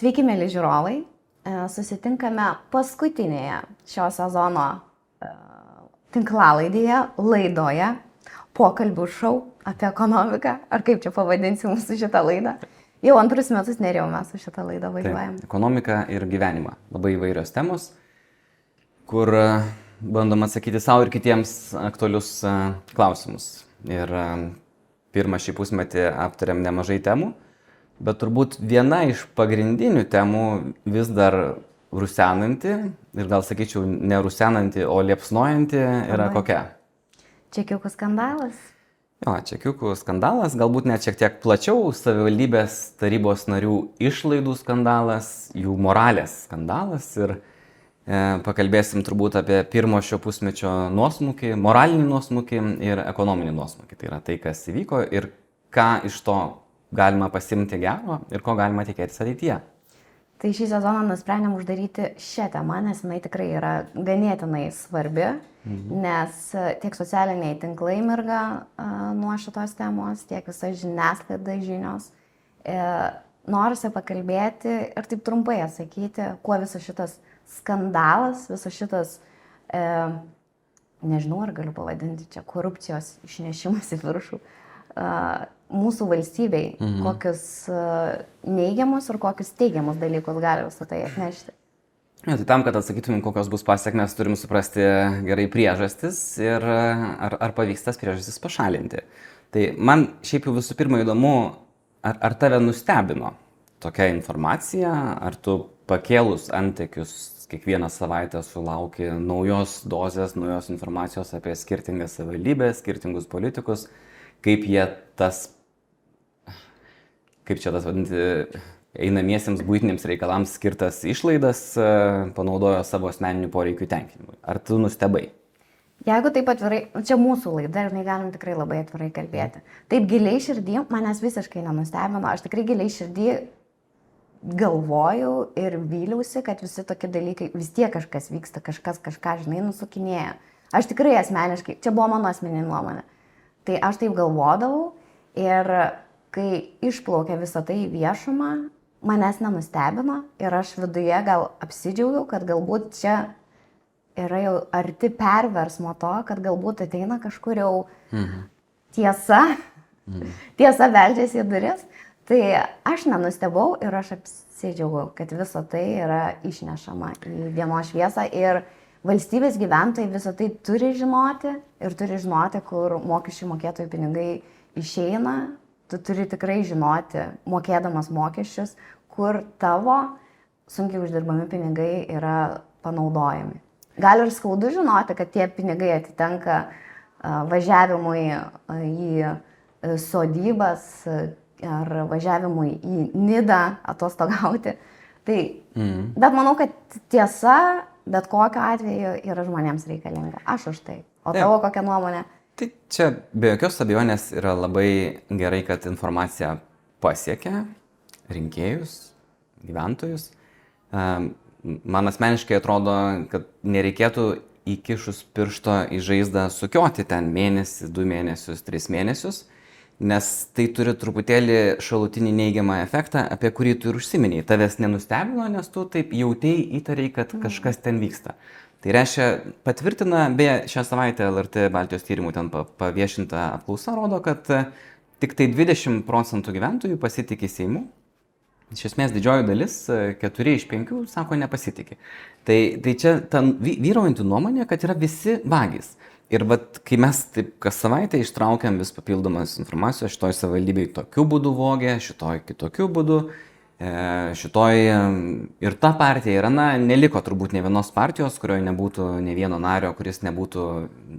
Sveiki, mėly žiūrovai. Susitinkame paskutinėje šio sezono tinklalaidėje, laidoje, pokalbių šou apie ekonomiką, ar kaip čia pavadinsim mūsų šitą laidą. Jau antrus metus Nerijau mes su šitą laidą važiuojam. Ekonomika ir gyvenimą. Labai įvairios temos, kur bandom atsakyti savo ir kitiems aktualius klausimus. Ir pirmą šį pusmetį aptarėm nemažai temų, bet turbūt viena iš pagrindinių temų vis dar rusenanti, ir gal sakyčiau ne rusenanti, o liepsnojanti yra kokia? Čekiukų skandalas. Jo, čekiukų skandalas, galbūt net šiek tiek plačiau, savivaldybės tarybos narių išlaidų skandalas, jų moralės skandalas ir pakalbėsim turbūt apie pirmo šio pusmečio nuosmukį, moralinį nuosmukį ir ekonominį nuosmukį. Tai yra tai, kas įvyko ir ką iš to galima pasimti gero ir ko galima tikėtis ateityje. Tai šį sezoną nusprendėm uždaryti šią temą, nes jinai tikrai yra ganėtinai svarbi, nes tiek socialiniai tinklai mirga nuo šitos temos, tiek visa žiniasklaida žinios. Norisi pakalbėti ir taip trumpai atsakyti, kuo visas šitas skandalas, visas šitas, nežinau, ar galiu pavadinti čia korupcijos išnešimas į viršų, mūsų valstybei, kokius neigiamus ir kokius teigiamus dalykus gali visą tai atnešti. Ja, tai tam, kad atsakytumėm, kokios bus pasiekmes, turim suprasti gerai priežastis ir ar pavyks tas priežastis pašalinti. Tai man šiaip jau visų pirma įdomu, ar tave nustebino tokia informacija, ar tu pakėlus antekius kiekvieną savaitę sulauki naujos dozės, naujos informacijos apie skirtingas savivaldybės, skirtingus politikus, kaip jie kaip čia tas vadinti, einamiesiems buitiniams reikalams skirtas išlaidas panaudojo savo asmeninių poreikių tenkinimui. Ar tu nustebai? Jeigu taip atvirai, čia mūsų laida ir galim tikrai labai atvirai kalbėti. Taip giliai širdį manęs visiškai nenustebino, aš tikrai giliai širdį galvojau ir vyliausi, kad visi tokie dalykai, vis tiek kažkas vyksta, kažkas kažką, žinai, nusukinėja. Aš tikrai asmeniškai, čia buvo mano asmeninė nuomonė. Tai aš taip galvodavau ir kai išplaukė visą tai į viešumą, manęs nenustebino ir aš viduje gal apsidžiaugiau, kad galbūt čia yra jau arti perversmo to, kad galbūt ateina kažkur jau tiesa beldžiasi į duris. Tai aš nenustebau ir aš apsidžiaugiau, kad visa tai yra išnešama į dienos šviesą ir valstybės gyventojai visą tai turi žinoti ir turi žinoti, kur mokesčių mokėtojų pinigai išeina. Tu turi tikrai žinoti, mokėdamas mokesčius, kur tavo sunkiai uždirbami pinigai yra panaudojami. Gal ir skaudu žinoti, kad tie pinigai atitenka važiavimui į sodybas ar važiavimui į Nidą atostogauti. Bet manau, kad tiesa bet kokiu atveju yra žmonėms reikalinga. Aš už tai. O tavo kokia nuomonė? Tai čia be jokios abejonės yra labai gerai, kad informacija pasiekia rinkėjus, gyventojus. Man asmeniškai atrodo, kad nereikėtų įkišus piršto į žaizdą sukioti ten mėnesį, 2 mėnesius, 3 mėnesius, nes tai turi truputėlį šalutinį neigiamą efektą, apie kurį tu ir užsiminėjai. Tavęs nenustebino, nes tu taip jautėjai, įtariai, kad kažkas ten vyksta. Tai reiškia, patvirtina, beje, šią savaitę LRT Baltijos tyrimų ten paviešinta apklausa rodo, kad tik tai 20% gyventojų pasitikė Seimu. Iš esmės didžioji dalis, 4 iš 5, sako nepasitikė. Tai čia ta vyraujanti nuomonė, kad yra visi vagys. Ir kai mes taip kas savaitę ištraukiam vis papildomas informacijos, šitoj savivaldybėj tokiu būdu vogė, šitoj kitokiu būdu, šitoj ir ta partija yra, neliko turbūt ne vienos partijos, kurioje nebūtų ne vieno nario, kuris nebūtų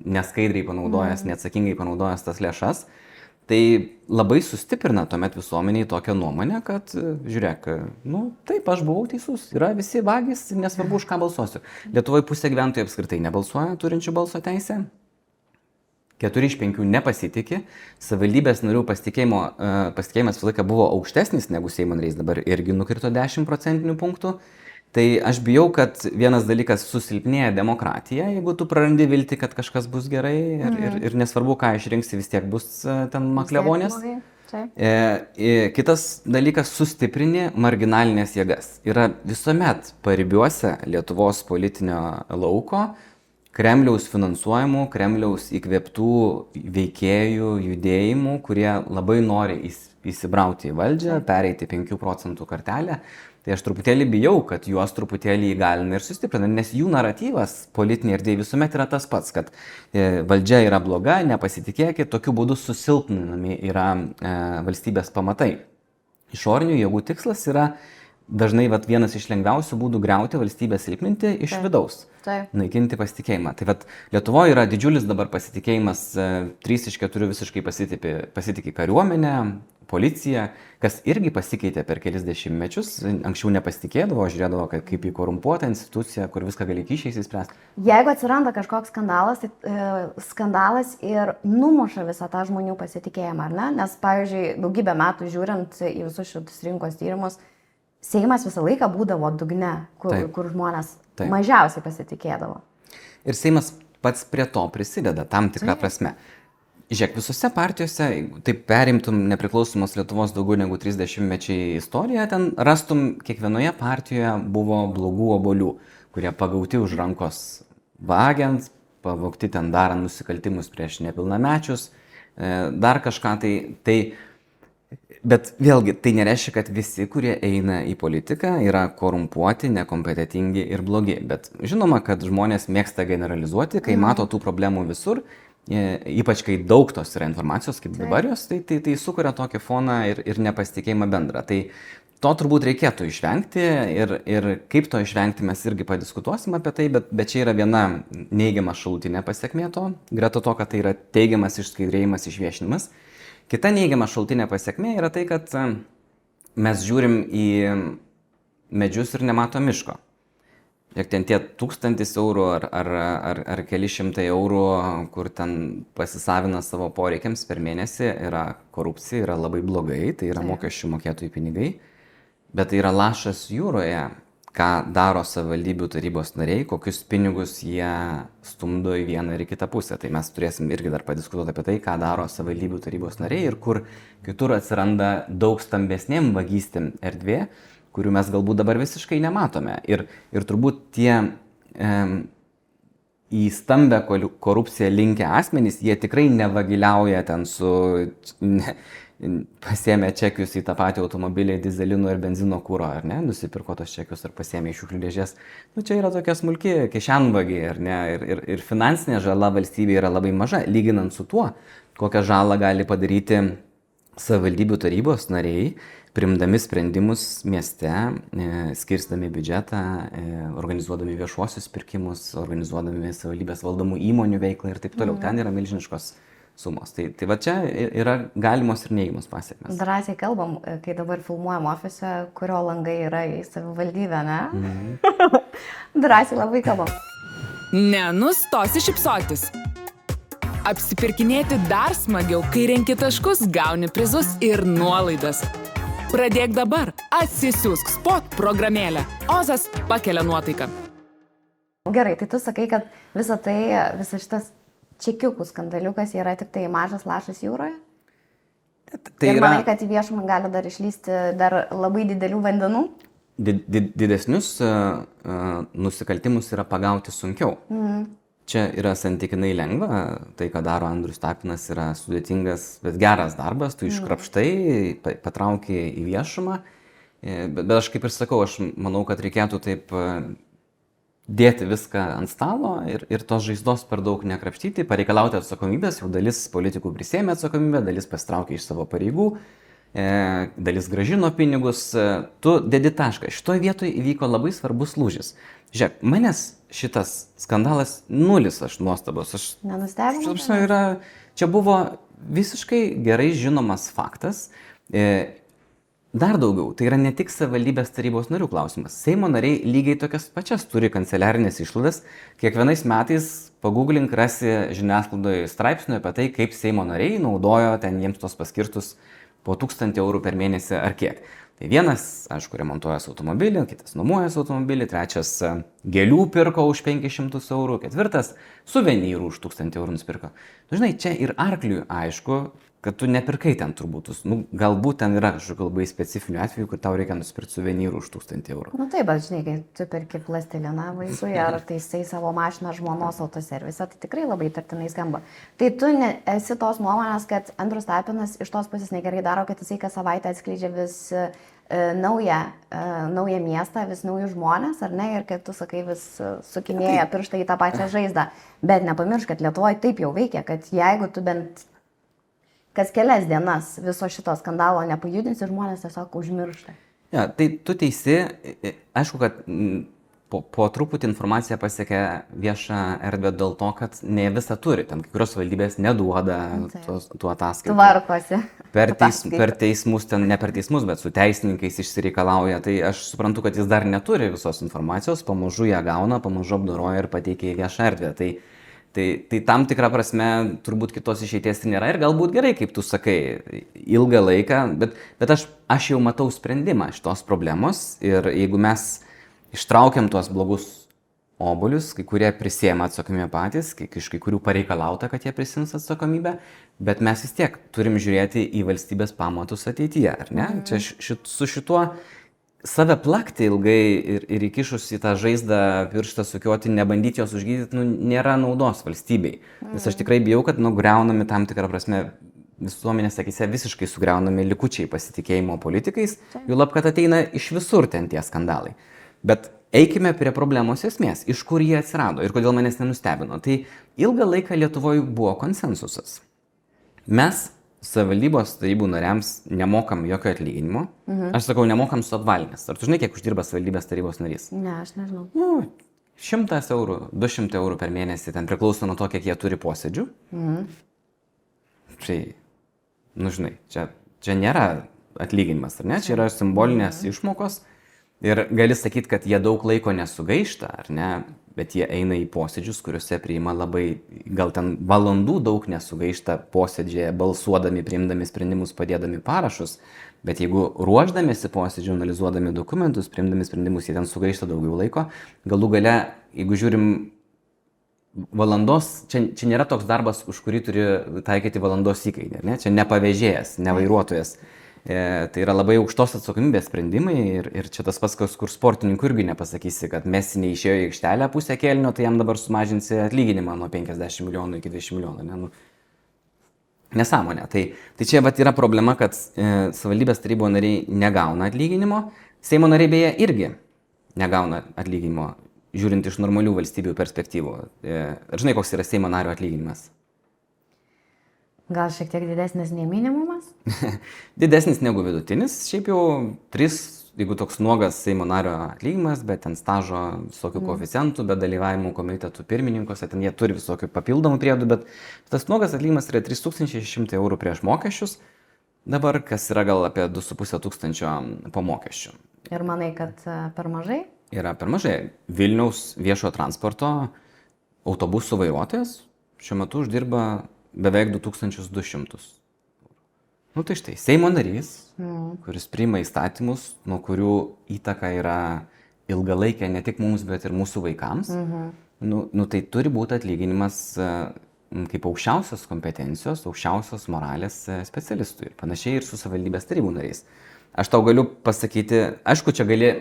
neskaidriai panaudojęs, neatsakingai panaudojęs tas lėšas. Tai labai sustiprina tuomet visuomeniai tokią nuomonę, kad žiūrėk, taip, aš buvau teisus, yra visi vagys, nesvarbu, už ką balsuosiu. Lietuvoje pusė gyventojų apskritai nebalsuoja turinčių balso teisę. 4 iš 5 nepasitikė, savivaldybės narių pasitikėjimas visą laiką buvo aukštesnis negu Seimo nariais, dabar irgi nukrito 10 procentinių punktų. Tai aš bijau, kad vienas dalykas susilpnėja demokratija, jeigu tu prarandi viltį, kad kažkas bus gerai ir nesvarbu, ką išrinksi, vis tiek bus ten maklevonės. Kitas dalykas - sustiprini marginalinės jėgas. Yra visuomet paribiuose Lietuvos politinio lauko Kremliaus finansuojamų, Kremliaus įkvėptų veikėjų, judėjimų, kurie labai nori įsibrauti į valdžią, pereiti 5 procentų kartelę. Tai aš truputėlį bijau, kad juos truputėlį įgalina ir sustiprina, nes jų naratyvas politinė erdvė visuomet yra tas pats, kad valdžia yra bloga, nepasitikėkit, tokiu būdu susilpninami yra valstybės pamatai. Išorinių jėgų tikslas yra dažnai vienas iš lengviausių būdų griauti valstybę, silpninti iš vidaus, naikinti pasitikėjimą. Tai Lietuvoje yra didžiulis dabar pasitikėjimas, 3 iš 4 visiškai pasitikė kariuomenę, policija, kas irgi pasikeitė per kelis dešimtmečius. Anksčiau nepasitikėdavo, žiūrėdavo kaip į korumpuotą instituciją, kur viską gali kyšiais įspręsti. Jeigu atsiranda kažkoks skandalas, tai skandalas ir numuša visą tą žmonių pasitikėjimą, ar ne? Nes, pavyzdžiui, daugybę metų žiūrint į visus šitus rinkos tyrimus, Seimas visą laiką būdavo dugne, kur žmonės mažiausiai pasitikėdavo. Ir Seimas pats prie to prisideda tam tikrą prasme. Žiūrėk, visose partijose, taip perimtum nepriklausomos Lietuvos daugiau negu 30 mečiai istoriją, ten rastum kiekvienoje partijoje buvo blogų obuolių, kurie pagauti už rankos vagiant, pavogti ten darant nusikaltimus prieš nepilnamečius, dar kažką tai. Bet vėlgi, tai nereiškia, kad visi, kurie eina į politiką, yra korumpuoti, nekompetentingi ir blogi. Bet žinoma, kad žmonės mėgsta generalizuoti, kai mato tų problemų visur, ypač kai daug tos yra informacijos, kaip dabar jos, tai sukuria tokį foną ir nepasitikėjimą bendrą. Tai to turbūt reikėtų išvengti ir kaip to išvengti mes irgi padiskutuosim apie tai, bet čia yra viena neigiama šalutinė pasekmė to, greta to, kad tai yra teigiamas išskaidrėjimas, išviešinimas. Kita neigiama šaltinė pasiekmė yra tai, kad mes žiūrim į medžius ir nematom miško. Ir ten tie 1000 eurų ar keli šimtai eurų, kur ten pasisavina savo poreikiams per mėnesį, yra korupcija, yra labai blogai, tai yra mokesčių mokėtojų pinigai, bet tai yra lašas jūroje, ką daro savivaldybių tarybos nariai, kokius pinigus jie stumdo į vieną ir į kitą pusę. Tai mes turėsim irgi dar padiskutuoti apie tai, ką daro savivaldybių tarybos nariai ir kur kitur atsiranda daug stambesnėm vagystėm erdvė, kurių mes galbūt dabar visiškai nematome. Ir turbūt tie į stambę korupciją linkę asmenys, jie tikrai nevagiliauja ten pasiėmė čekius į tą patį automobilį, dizelino ir benzino kūro, ar ne, nusipirko tos čekius ir pasiėmė iš šiukšlių dėžės. Čia yra tokia smulki kišenvagiai, ar ne, ir finansinė žala valstybėje yra labai maža, lyginant su tuo, kokią žalą gali padaryti savivaldybių tarybos nariai, priimdami sprendimus mieste, skirstami biudžetą, organizuodami viešuosius pirkimus, organizuodami savivaldybės valdomų įmonių veiklą ir taip toliau. Ten yra milžiniškos sumos. Tai va čia yra galimos ir neįgimos pasiekmes. Drąsiai kalbam, kai dabar filmuojam ofise, kurio langai yra į savivaldybę, ne? Drąsiai labai kalbam. Nenustosi šypsotis. Apsipirkinėti dar smagiau, kai renki taškus, gauni prizus ir nuolaidas. Pradėk dabar. Atsisiųsk Spot programėlę. Ozas pakelia nuotaiką. Gerai, tai tu sakai, kad visas šitas čekiukų skandaliukas yra tik tai mažas lašas jūroje? Tai ir manai, kad į viešumą gali dar išlysti dar labai didelių vandenų? Didesnius nusikaltimus yra pagauti sunkiau. Čia yra santykinai lengva, tai, ką daro Andrius Tapinas, yra sudėtingas, bet geras darbas, tu iškrapštai, patrauki į viešumą, bet aš kaip ir sakau, aš manau, kad reikėtų taip dėti viską ant stalo ir tos žaizdos per daug nekrapštyti, pareikalauti atsakomybės, jau dalis politikų prisėmė atsakomybę, dalis pasitraukė iš savo pareigų, dalis grąžino pinigus, tu dedi tašką. Šitoje vietoje įvyko labai svarbus lūžis. Žiūrėk, manęs šitas skandalas nulis, aš nuostabos. Nenustebino? Čia buvo visiškai gerai žinomas faktas. Dar daugiau, tai yra ne tik savivaldybės tarybos narių klausimas. Seimo nariai lygiai tokias pačias turi kanceliarinės išlaidas. Kiekvienais metais pagooglink rasi žiniasklaidoje straipsnių apie tai, kaip Seimo nariai naudojo ten jiems tos paskirtus po 1000 eurų per mėnesį ar kiek. Tai vienas, aišku, remontuojas automobilį, kitas nuomojas automobilį, trečias gėlių pirko už 500 eurų, ketvirtas suvenyrų už 1000 eurų nusipirko. Žinai, čia ir arkliui aišku, kad tu nepirkai ten turbūt. Galbūt ten yra kažkokių labai specifinių atvejų, kur tau reikia nusipirkti suvenyrų už 1000 eurų. Taip, bet žinai, kai tu perki plastiliną vaikui ar taisai savo mašiną žmonos autoservise, tai tikrai labai tartinai skamba. Tai tu esi tos nuomonės, kad Andrius Tapinas iš tos pusės negerai daro, kad jisai kas savaitę atskleidžia vis naują miestą, vis naujus žmonės, ar ne, ir kad tu sakai vis sukinėja pirštą į tą pačią žaizdą. Bet nepamiršk, kad Lietuvoje taip jau veikia, kad jeigu tu bent kas kelias dienas viso šito skandalo nepajudinsi, žmonės tiesiog užmiršta. Ja, tai tu teisi, aišku, kad po truputį informacija pasiekia viešą erdvę dėl to, kad ne visą turi, ten kai kurios valdybės neduoda tų ataskaitų. Tvarkosi. Per teismus, ten ne per teismus, bet su teisininkais išsireikalauja, tai aš suprantu, kad jis dar neturi visos informacijos, pamažu ją gauna, pamažu apdoroja ir pateikia į viešą erdvę. Tai tam tikrą prasme turbūt kitos išeities nėra ir galbūt gerai, kaip tu sakai, ilgą laiką, bet aš jau matau sprendimą šitos problemos ir jeigu mes ištraukiam tuos blogus obuolius, kai kurie prisiema atsakomybę patys, iš kai kurių pareikalauta, kad jie prisims atsakomybę, bet mes vis tiek turim žiūrėti į valstybės pamatus ateityje, ar ne? Čia su šituo save plakti ilgai ir įkišus į tą žaizdą pirštą sukioti, nebandyti jos užgydyti, nėra naudos valstybei. Nes aš tikrai bijau, kad griaunami tam tikrą prasme visuomenės akyse visiškai sugriaunami likučiai pasitikėjimo politikais, juolab, kad ateina iš visur ten tie skandalai. Bet eikime prie problemos esmės, iš kur jie atsirado ir kodėl manęs nenustebino. Tai ilgą laiką Lietuvoje buvo konsensusas. Mes savivaldybos tarybų nariams nemokam jokio atlyginimo. Aš sakau, nemokam su apvalinės. Ar tu žinai, kiek uždirba savivaldybės tarybos narys? Ne, aš nežinau. 100 eurų, 200 eurų per mėnesį, ten priklauso nuo to, kiek jie turi posėdžių. Tai, žinai, čia nėra atlyginimas, ar ne? Čia yra simbolinės išmokos. Ir gali sakyti, kad jie daug laiko nesugaišta, ar ne? Bet jie eina į posėdžius, kuriuose priima labai, gal ten valandų daug nesugaišta posėdžiai, balsuodami, priimdami sprendimus, padėdami parašus. Bet jeigu ruoždamėsi posėdžių, analizuodami dokumentus, priimdami sprendimus, jie ten sugaišta daugiau laiko. Galų gale, jeigu žiūrim valandos, čia nėra toks darbas, už kurį turi taikyti valandos įkainį, ne? Čia ne pavėžėjas, ne vairuotojas. Tai yra labai aukštos atsakomybės sprendimai ir čia tas pats, kur sportininkų irgi nepasakysi, kad Messi neišėjo į aikštelę pusę kėlinio, tai jam dabar sumažinsi atlyginimą nuo 50 milijonų iki 20 milijonų. Ne? Nesąmonė. Tai čia yra problema, kad savivaldybės tarybos nariai negauna atlyginimo, Seimo nariai beje irgi negauna atlyginimo, žiūrint iš normalių valstybių perspektyvų. Ar žinai, koks yra Seimo nario atlyginimas? Gal šiek tiek didesnis nei minimumas? Didesnis negu vidutinis, šiaip jau 3, jeigu toks nuogas Seimo nario atlyginimas, bet ten stažo visokių koeficientų, bet dalyvavimų komitetų pirmininkuose, ten jie turi visokių papildomų priedų, bet tas nuogas atlyginimas yra 3600 eurų prieš mokesčius, dabar kas yra gal apie 2500 po mokesčių. Ir manai, kad per mažai? Yra per mažai. Vilniaus viešojo transporto autobusų vairuotojas šiuo metu uždirba beveik 2200. Tai štai, Seimo narys, kuris priima įstatymus, nuo kurių įtaka yra ilgalaikė ne tik mums, bet ir mūsų vaikams, tai turi būti atlyginimas kaip aukščiausios kompetencijos, aukščiausios moralės specialistui. Ir panašiai ir su savivaldybės tarybų nariais. Aš tau galiu pasakyti, aišku, čia gali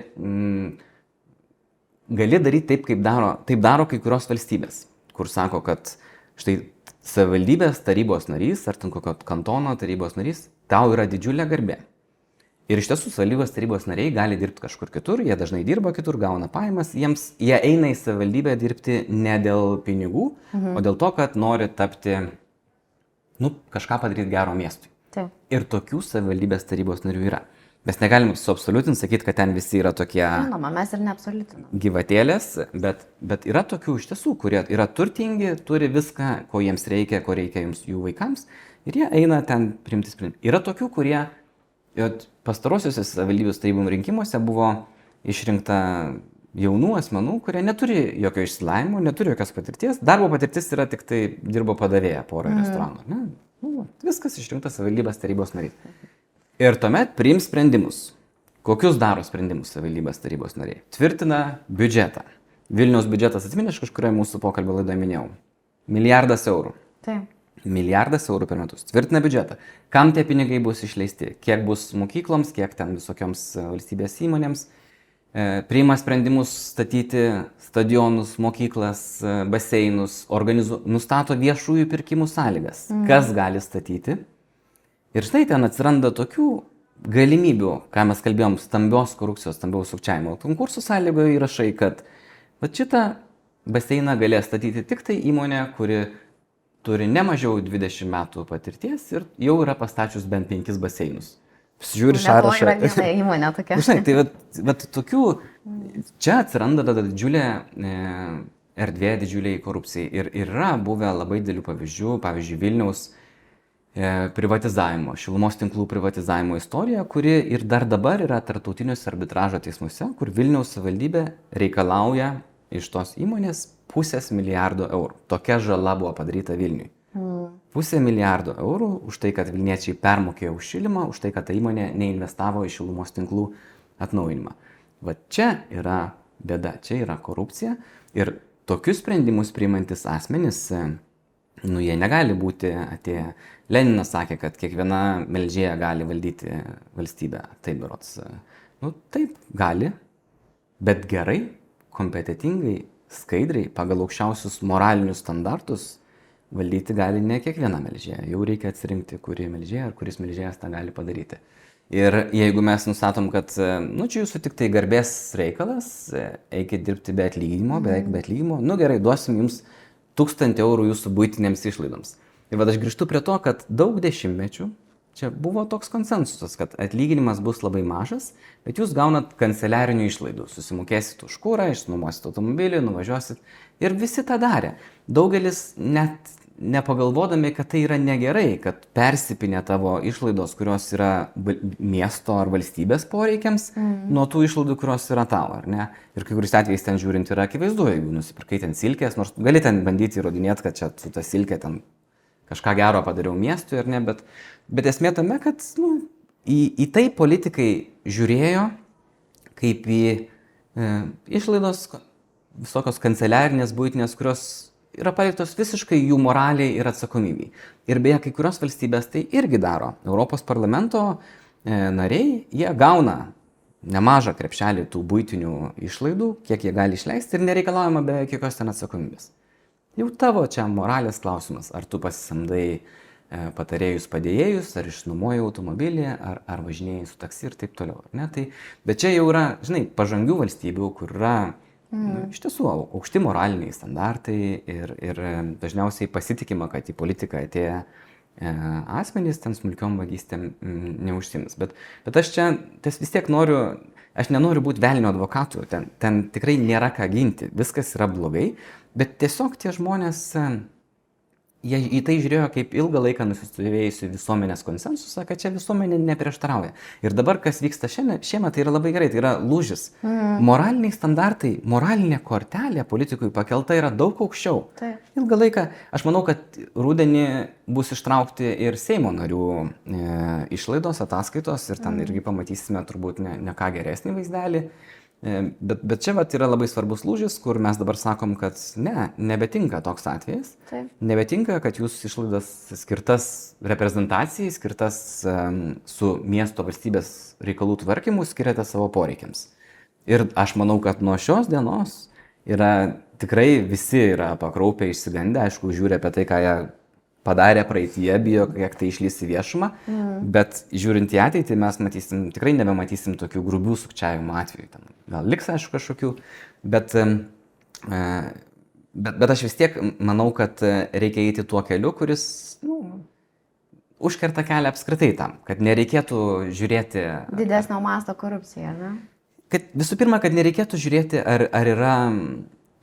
daryti taip, kaip daro kai kurios valstybės, kur sako, kad štai savivaldybės tarybos narys ar ten kokio kantono tarybos narys, tau yra didžiulė garbė. Ir iš tiesų savivaldybės tarybos nariai gali dirbti kažkur kitur, jie dažnai dirba kitur, gauna pajamas, jie eina į savivaldybę dirbti ne dėl pinigų, o dėl to, kad nori tapti, kažką padaryti gero miestui. Taip. Ir tokių savivaldybės tarybos narių yra. Mes negalim suabsoliutinti, sakyti, kad ten visi yra tokie Žinoma, mes ir neabsoliutinam. Gyvatėlės, bet yra tokių iš tiesų, kurie yra turtingi, turi viską, ko jiems reikia, ko reikia jų vaikams, ir jie eina ten priimti sprendimą. Yra tokių, kurie pastarosiuose savivaldybės tarybų rinkimuose buvo išrinkta jaunų asmenų, kurie neturi jokio išsilavinimo, neturi jokios patirties. Darbo patirtis yra tik tai dirbo padavėja porą restoranų. Viskas išrinktas savivaldybės tarybos narys. Ir tuomet priims sprendimus. Kokius daro sprendimus savivaldybės tarybos nariai? Tvirtina biudžetą. Vilniaus biudžetas, atsimeni, aš kažkurioje mūsų pokalbio laidoje minėjau. 1 milijardas eurų. Taip. 1 milijardas eurų per metus. Tvirtina biudžetą. Kam tie pinigai bus išleisti? Kiek bus mokykloms, kiek ten visokioms valstybės įmonėms. Priima sprendimus statyti stadionus, mokyklas, baseinus, nustato viešųjų pirkimų sąlygas. Kas gali statyti. Ir štai ten atsiranda tokių galimybių, ką mes kalbėjom, stambios korupcijos, stambiaus sukčiavimo. Konkursų sąlygoje įrašai, kad šitą baseiną galės statyti tik tai įmonė, kuri turi ne mažiau 20 metų patirties ir jau yra pastačius bent 5 baseinus. Žiūri sąrašą. Yra viena įmonė tokia. Žinai, tai vat tokių, čia atsiranda tada didžiulė erdvė, didžiuliai korupcijai. Ir yra buvę labai didelių pavyzdžių, pavyzdžiui, Vilniaus privatizavimo, šilumos tinklų privatizavimo istorija, kuri ir dar dabar yra tarptautiniuose arbitražo teismuose, kur Vilniaus savivaldybė reikalauja iš tos įmonės 500 milijardo eurų. Tokia žala buvo padaryta Vilniui. 500 milijardo eurų už tai, kad vilniečiai permokėjo už šilimą, už tai, kad ta įmonė neinvestavo į šilumos tinklų atnaujinimą. Va čia yra bėda, čia yra korupcija ir tokius sprendimus priimantis asmenys, jie negali būti atėję. Leninas sakė, kad kiekviena melžėja gali valdyti valstybę. Taip, berods. Taip, gali, bet gerai, kompetitingai, skaidriai, pagal aukščiausius moralinius standartus valdyti gali ne kiekviena melžėja. Jau reikia atsirinkti, kuri melžėja ar kuris melžėjas tą gali padaryti. Ir jeigu mes nustatom, kad čia jūsų tik tai garbės reikalas, eikit dirbti be atlyginimo, beveik be atlyginimo, gerai, duosim jums 1000 eurų jūsų buitinėms išlaidoms. Ir vad aš grįžtu prie to, kad daug dešimtmečių čia buvo toks konsensusas, kad atlyginimas bus labai mažas, bet jūs gaunat kanceliarinių išlaidų. Susimokėsit už kurą, išnuomosit automobilį, nuvažiuosit. Ir visi tą darė. Daugelis net nepagalvodami, kad tai yra negerai, kad persipinė tavo išlaidos, kurios yra miesto ar valstybės poreikiams, nuo tų išlaidų, kurios yra tavo, ar ne? Ir kai kuris atvejais ten žiūrint yra akivaizdu, jeigu nusipirkai ten silkės, nors gali ten bandyti įrodinėti, kad čia su ta silkė ten kažką gero padariau miestui, ar ne, bet esmė tame, kad į tai politikai žiūrėjo kaip į išlaidos visokios kanceliarinės, buitinės, kurios yra paliktos visiškai jų moraliai ir atsakomybei. Ir beje, kai kurios valstybės tai irgi daro. Europos parlamento nariai, jie gauna nemažą krepšelį tų buitinių išlaidų, kiek jie gali išleisti ir nereikalaujama be jokios ten atsakomybės. Jau tavo čia moralės klausimas, ar tu pasisamdai patarėjus padėjėjus, ar išnuomoji automobilį, ar važinėjai su taksi ir taip toliau. Ne? Bet čia jau yra, žinai, pažangių valstybių, kur yra iš tiesų aukšti moraliniai standartai ir dažniausiai pasitikima, kad į politiką atėję asmenys ten smulkiom vagystėm neužsims. Bet aš čia vis tiek aš nenoriu būti velnio advokatu, ten tikrai nėra ką ginti, viskas yra blogai, bet tiesiog tie žmonės, jie į tai žiūrėjo kaip ilgą laiką nusistovėjusi visuomenės konsensusą, kad čia visuomenė neprieštarauja. Ir dabar, kas vyksta šiemet, tai yra labai gerai, tai yra lūžis. Moraliniai standartai, moralinė kortelė politikui pakelta yra daug aukščiau. Ilgą laiką, aš manau, kad rudenį bus ištraukti ir Seimo narių išlaidos, ataskaitos ir ten irgi pamatysime turbūt ne ką geresnį vaizdelį. Bet čia yra labai svarbus lūžis, kur mes dabar sakom, kad nebetinka toks atvejis. Nebetinka, kad jūs išlaidas skirtas reprezentacijai, skirtas su miesto valstybės reikalų tvarkymu skiriate savo poreikiams. Ir aš manau, kad nuo šios dienos tikrai visi yra pakraupę, išsigandę, aišku, žiūri apie tai, ką jie padarė praeitie, bijo, kiek tai išlys į viešumą, bet žiūrint į ateitį mes tikrai nebematysim tokių grubių sukčiavimo atvejų. Gal liks, aišku, kažkokių, bet aš vis tiek manau, kad reikia eiti tuo keliu, kuris užkerta kelią apskritai tam, kad nereikėtų žiūrėti... Didesnio masto korupcija, ne? Visų pirma, kad nereikėtų žiūrėti, ar yra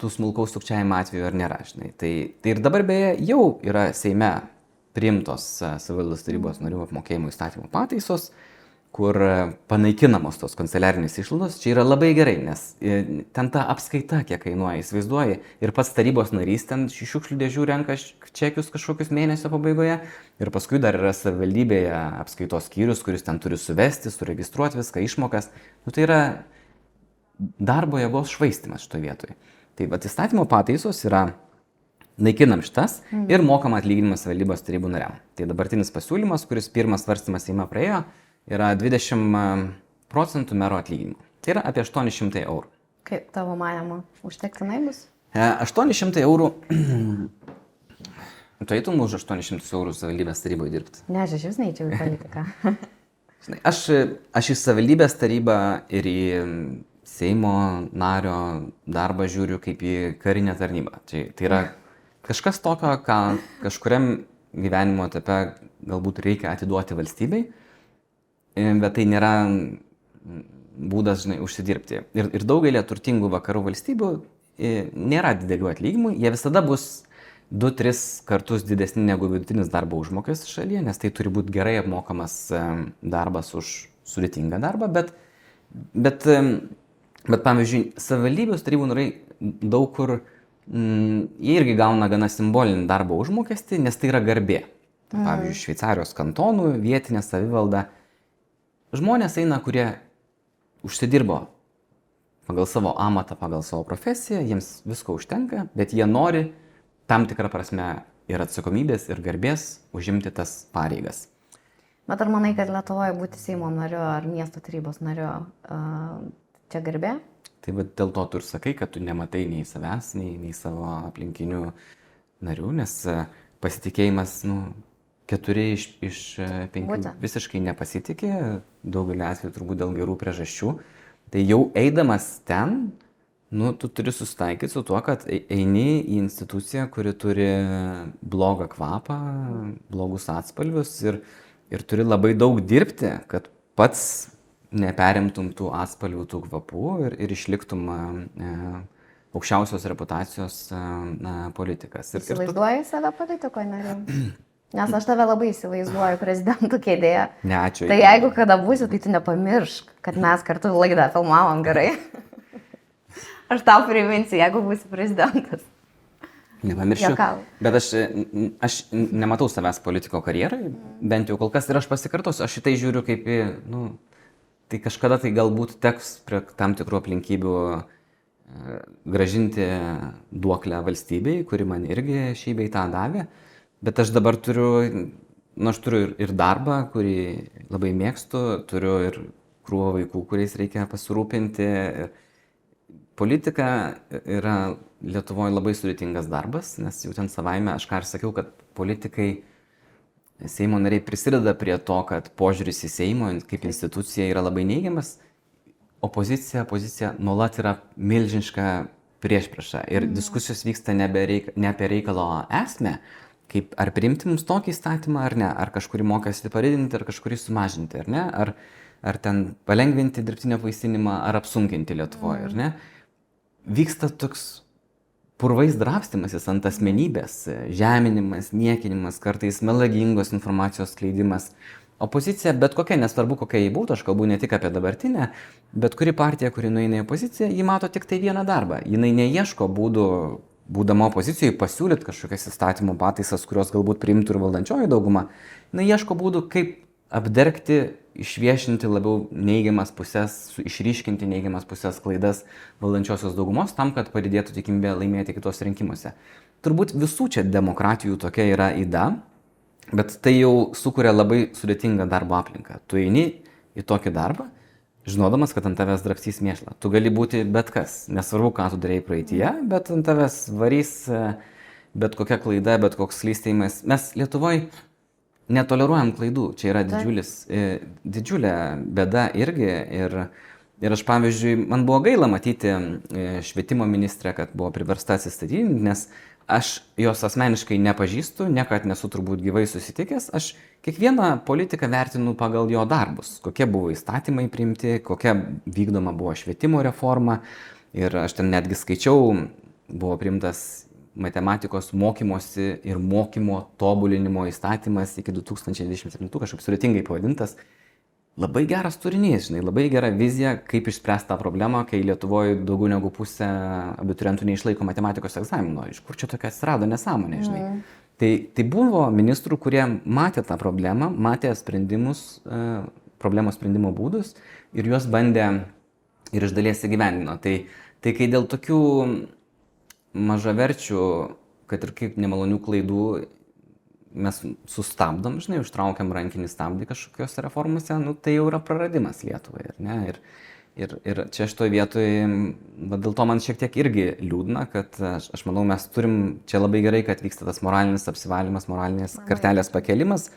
tų smulkaus sukčiavimo atveju ar nėra, žinai. Tai ir dabar beje jau yra Seime priimtos savivaldos tarybos narių apmokėjimo įstatymų pataisos, kur panaikinamos tos kanceliarinės išlaidos. Čia yra labai gerai, nes ten ta apskaita, kiek kainuoja, įsivaizduoji, ir pats tarybos narys ten šiukšlių dėžių renka čekius kažkokius mėnesio pabaigoje, ir paskui dar yra savivaldybėje apskaitos skyrius, kuris ten turi suvesti, suregistruoti viską, išmokas. Tai yra darbo jėgos švaistymas šitoje vietoje. Tai vat įstatymo pataisos yra naikinam šitas ir mokam atlyginimas valdybos tarybų nariam. Tai dabartinis pasiūlymas, kuris pirmas svarstymas Seime praėjo, yra 20% mero atlyginimo. Tai yra apie 800 eurų. Kaip tavo manimo, užtektinai bus? 800 eurų. Tu eitum už 800 eurų savivaldybės taryboje dirbti? Ne, aš vis neįčiau į politiką. Žinai, aš į savivaldybės tarybą ir į Seimo nario darbą žiūriu kaip į karinę tarnybą. Tai yra kažkas tokio, ką kažkuriam gyvenimo etape galbūt reikia atiduoti valstybei, bet tai nėra būdas, žinai, užsidirbti. Ir daugelį turtingų vakarų valstybių nėra didelių atlyginimų, jie visada bus 2-3 kartus didesni negu vidutinis darbo užmokestis šalyje, nes tai turi būti gerai apmokamas darbas už sudėtingą darbą, bet pavyzdžiui, savivaldybės tarybų nariai daug kur jie irgi gauna gana simbolinį darbo užmokestį, nes tai yra garbė. Tai, pavyzdžiui, Šveicarijos kantonų, vietinė savivalda. Žmonės eina, kurie užsidirbo pagal savo amatą, pagal savo profesiją, jiems visko užtenka, bet jie nori tam tikrą prasme ir atsakomybės, ir garbės užimti tas pareigas. Bet ar manai, kad Lietuvoje būti Seimo nariu ar miesto tarybos nariu čia garbė? Tai dėl to tu ir sakai, kad tu nematai nei savęs, nei savo aplinkinių narių, nes pasitikėjimas, 4 iš 5 visiškai nepasitikė, daugelį atvejų turbūt dėl gerų priežasčių. Tai jau eidamas ten, tu turi susitaikyti su tuo, kad eini į instituciją, kuri turi blogą kvapą, blogus atspalvius ir turi labai daug dirbti, kad pats neperimtum tų atspalvių, tų kvapų ir išliktum aukščiausios reputacijos politikas. Įsivaizduoji save politikoje, nariu? Nes aš tave labai įsivaizduoju prezidentų kėdėje. Ne, ačiū. Tai jeigu kada būsi, tai tu nepamiršk, kad mes kartu laidą filmavom gerai. Aš tau priminsiu, jeigu būsi prezidentas. Nepamiršiu. Bet aš nematau savęs politiko karjerai, bent jau kol kas, ir aš pasikartosiu, aš šitai žiūriu kaip į, tai kažkada tai galbūt teks prie tam tikrų aplinkybių gražinti duoklę valstybei, kuri man irgi šį bei tą davė, bet aš dabar turiu ir darbą, kurį labai mėgstu, turiu ir krūvą vaikų, kuriais reikia pasirūpinti. Politika yra Lietuvoje labai sudėtingas darbas, nes jau ten savaime, aš ką ir sakiau, kad politikai, Seimo nariai prisideda prie to, kad požiūris į Seimo kaip instituciją yra labai neigiamas, opozicija nuolat yra milžiniška priešprieša ir diskusijos vyksta ne apie reikalo esmę, kaip ar priimti mums tokį įstatymą ar ne, ar kažkurį mokestį padidinti, ar kažkurį sumažinti, ar ne, ar ten palengvinti dirbtinio apvaisinimą, ar apsunkinti Lietuvoje, ar ne. Vyksta toks purvais drabstymasis ant asmenybės, žeminimas, niekinimas, kartais melagingos informacijos skleidimas. Opozicija, bet kokia, nesvarbu kokia jį būtų, aš kalbu ne tik apie dabartinę, bet kuri partija, kuri nueina į opoziciją, ji mato tik tai vieną darbą. Jinai neieško būdų, būdama opozicijoje, pasiūlyti kažkokias įstatymų pataisas, kurios galbūt priimtų ir valdančioji dauguma. Jinai ieško būdų, kaip apdergti, išviešinti labiau neigiamas pusės, išryškinti neigiamas pusės klaidas valdančiosios daugumos tam, kad padidėtų tikimybė laimėti kitose rinkimuose. Turbūt visų čia demokratijų tokia yra yda, bet tai jau sukuria labai sudėtingą darbo aplinką. Tu eini į tokį darbą, žinodamas, kad ant tavęs drabstys mėšlą. Tu gali būti bet kas, nesvarbu, ką tu darėjai praeityje, bet ant tavęs varys bet kokia klaida, bet koks slystėjimas. Mes Lietuvoje netoleruojam klaidų, čia yra didžiulė bėda irgi ir aš, pavyzdžiui, man buvo gaila matyti švietimo ministrę, kad buvo priversta atsistatydinti, nes aš jos asmeniškai nepažįstu, niekad nesu turbūt gyvai susitikęs, aš kiekvieną politiką vertinu pagal jo darbus, kokie buvo įstatymai priimti, kokia vykdoma buvo švietimo reforma ir aš ten netgi skaičiau, buvo priimtas matematikos mokymosi ir mokymo tobulinimo įstatymas iki 2027, kažkaip sudėtingai pavadintas. Labai geras turinys, žinai, labai gera vizija, kaip išspręsti tą problemą, kai Lietuvoje daugiau negu pusė abiturientų neišlaiko matematikos egzamino. Iš kur čia tokia atsirado nesąmonė, žinai. Tai buvo ministrų, kurie matė tą problemą, matė problemos sprendimo būdus ir juos bandė ir iš dalies įgyvendino. Tai kai dėl tokių mažaverčių, kad ir kaip nemalonių klaidų mes sustabdom, žinai, užtraukiam rankinį stabdį kažkokios reformose, nu, tai jau yra praradimas Lietuvai, ar ne? Ir čia šitoj vietoje, dėl to man šiek tiek irgi liūdna, kad aš manau, mes turim, čia labai gerai, kad vyksta tas moralinis apsivalymas, moralinės kartelės pakelimas,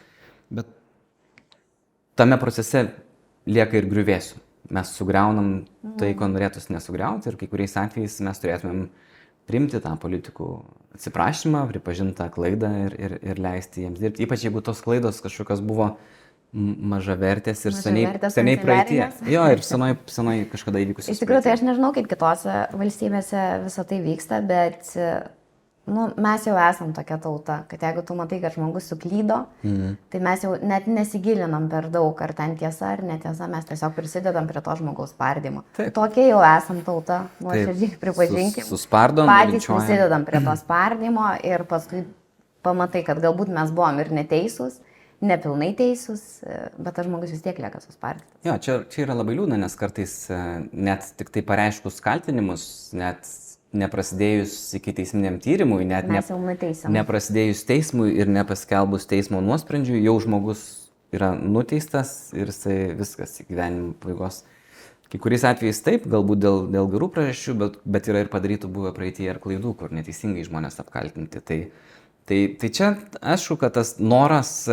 bet tame procese lieka ir griuvėsių. Mes sugriaunam tai, ko norėtųsi nesugriauti ir kai kuriais atvejais mes turėtumėm priimti tą politikų atsiprašymą, pripažintą klaidą ir leisti jiems dirbti. Ypač jeigu tos klaidos kažkokios buvo mažavertės ir seniai praeitie. Jo, ir senai kažkada įvykusios. Iš tikrųjų, tai aš nežinau, kaip kitose valstybėse visą tai vyksta, bet mes jau esam tokia tauta, kad jeigu tu matai, kad žmogus suklydo, tai mes jau net nesigilinam per daug, ar ten tiesa ar netiesa, mes tiesiog prisidedam prie to žmogaus spardymo. Tokie jau esam tauta, nuoširdžiai pripažinkim. Suspardom, patys prisidedam prie to spardymo ir paskui pamatai, kad galbūt mes buvom ir neteisūs, nepilnai teisūs, bet tas žmogus vis tiek lieka suspardytas. Jo, čia yra labai liūdna, nes kartais net tik tai pareiškus kaltinimus, net neprasidėjus iki teisminiam tyrimui, net neprasidėjus teismui ir nepaskelbus teismo nuosprendžiui, jau žmogus yra nuteistas ir jisai viskas į gyvenimo pabaigos. Kai kuriais atvejais taip, galbūt dėl gerų priežasčių, bet yra ir padarytų buvę praeityje ir klaidų, kur neteisingai žmonės apkaltinti. Tai čia aišku, kad tas noras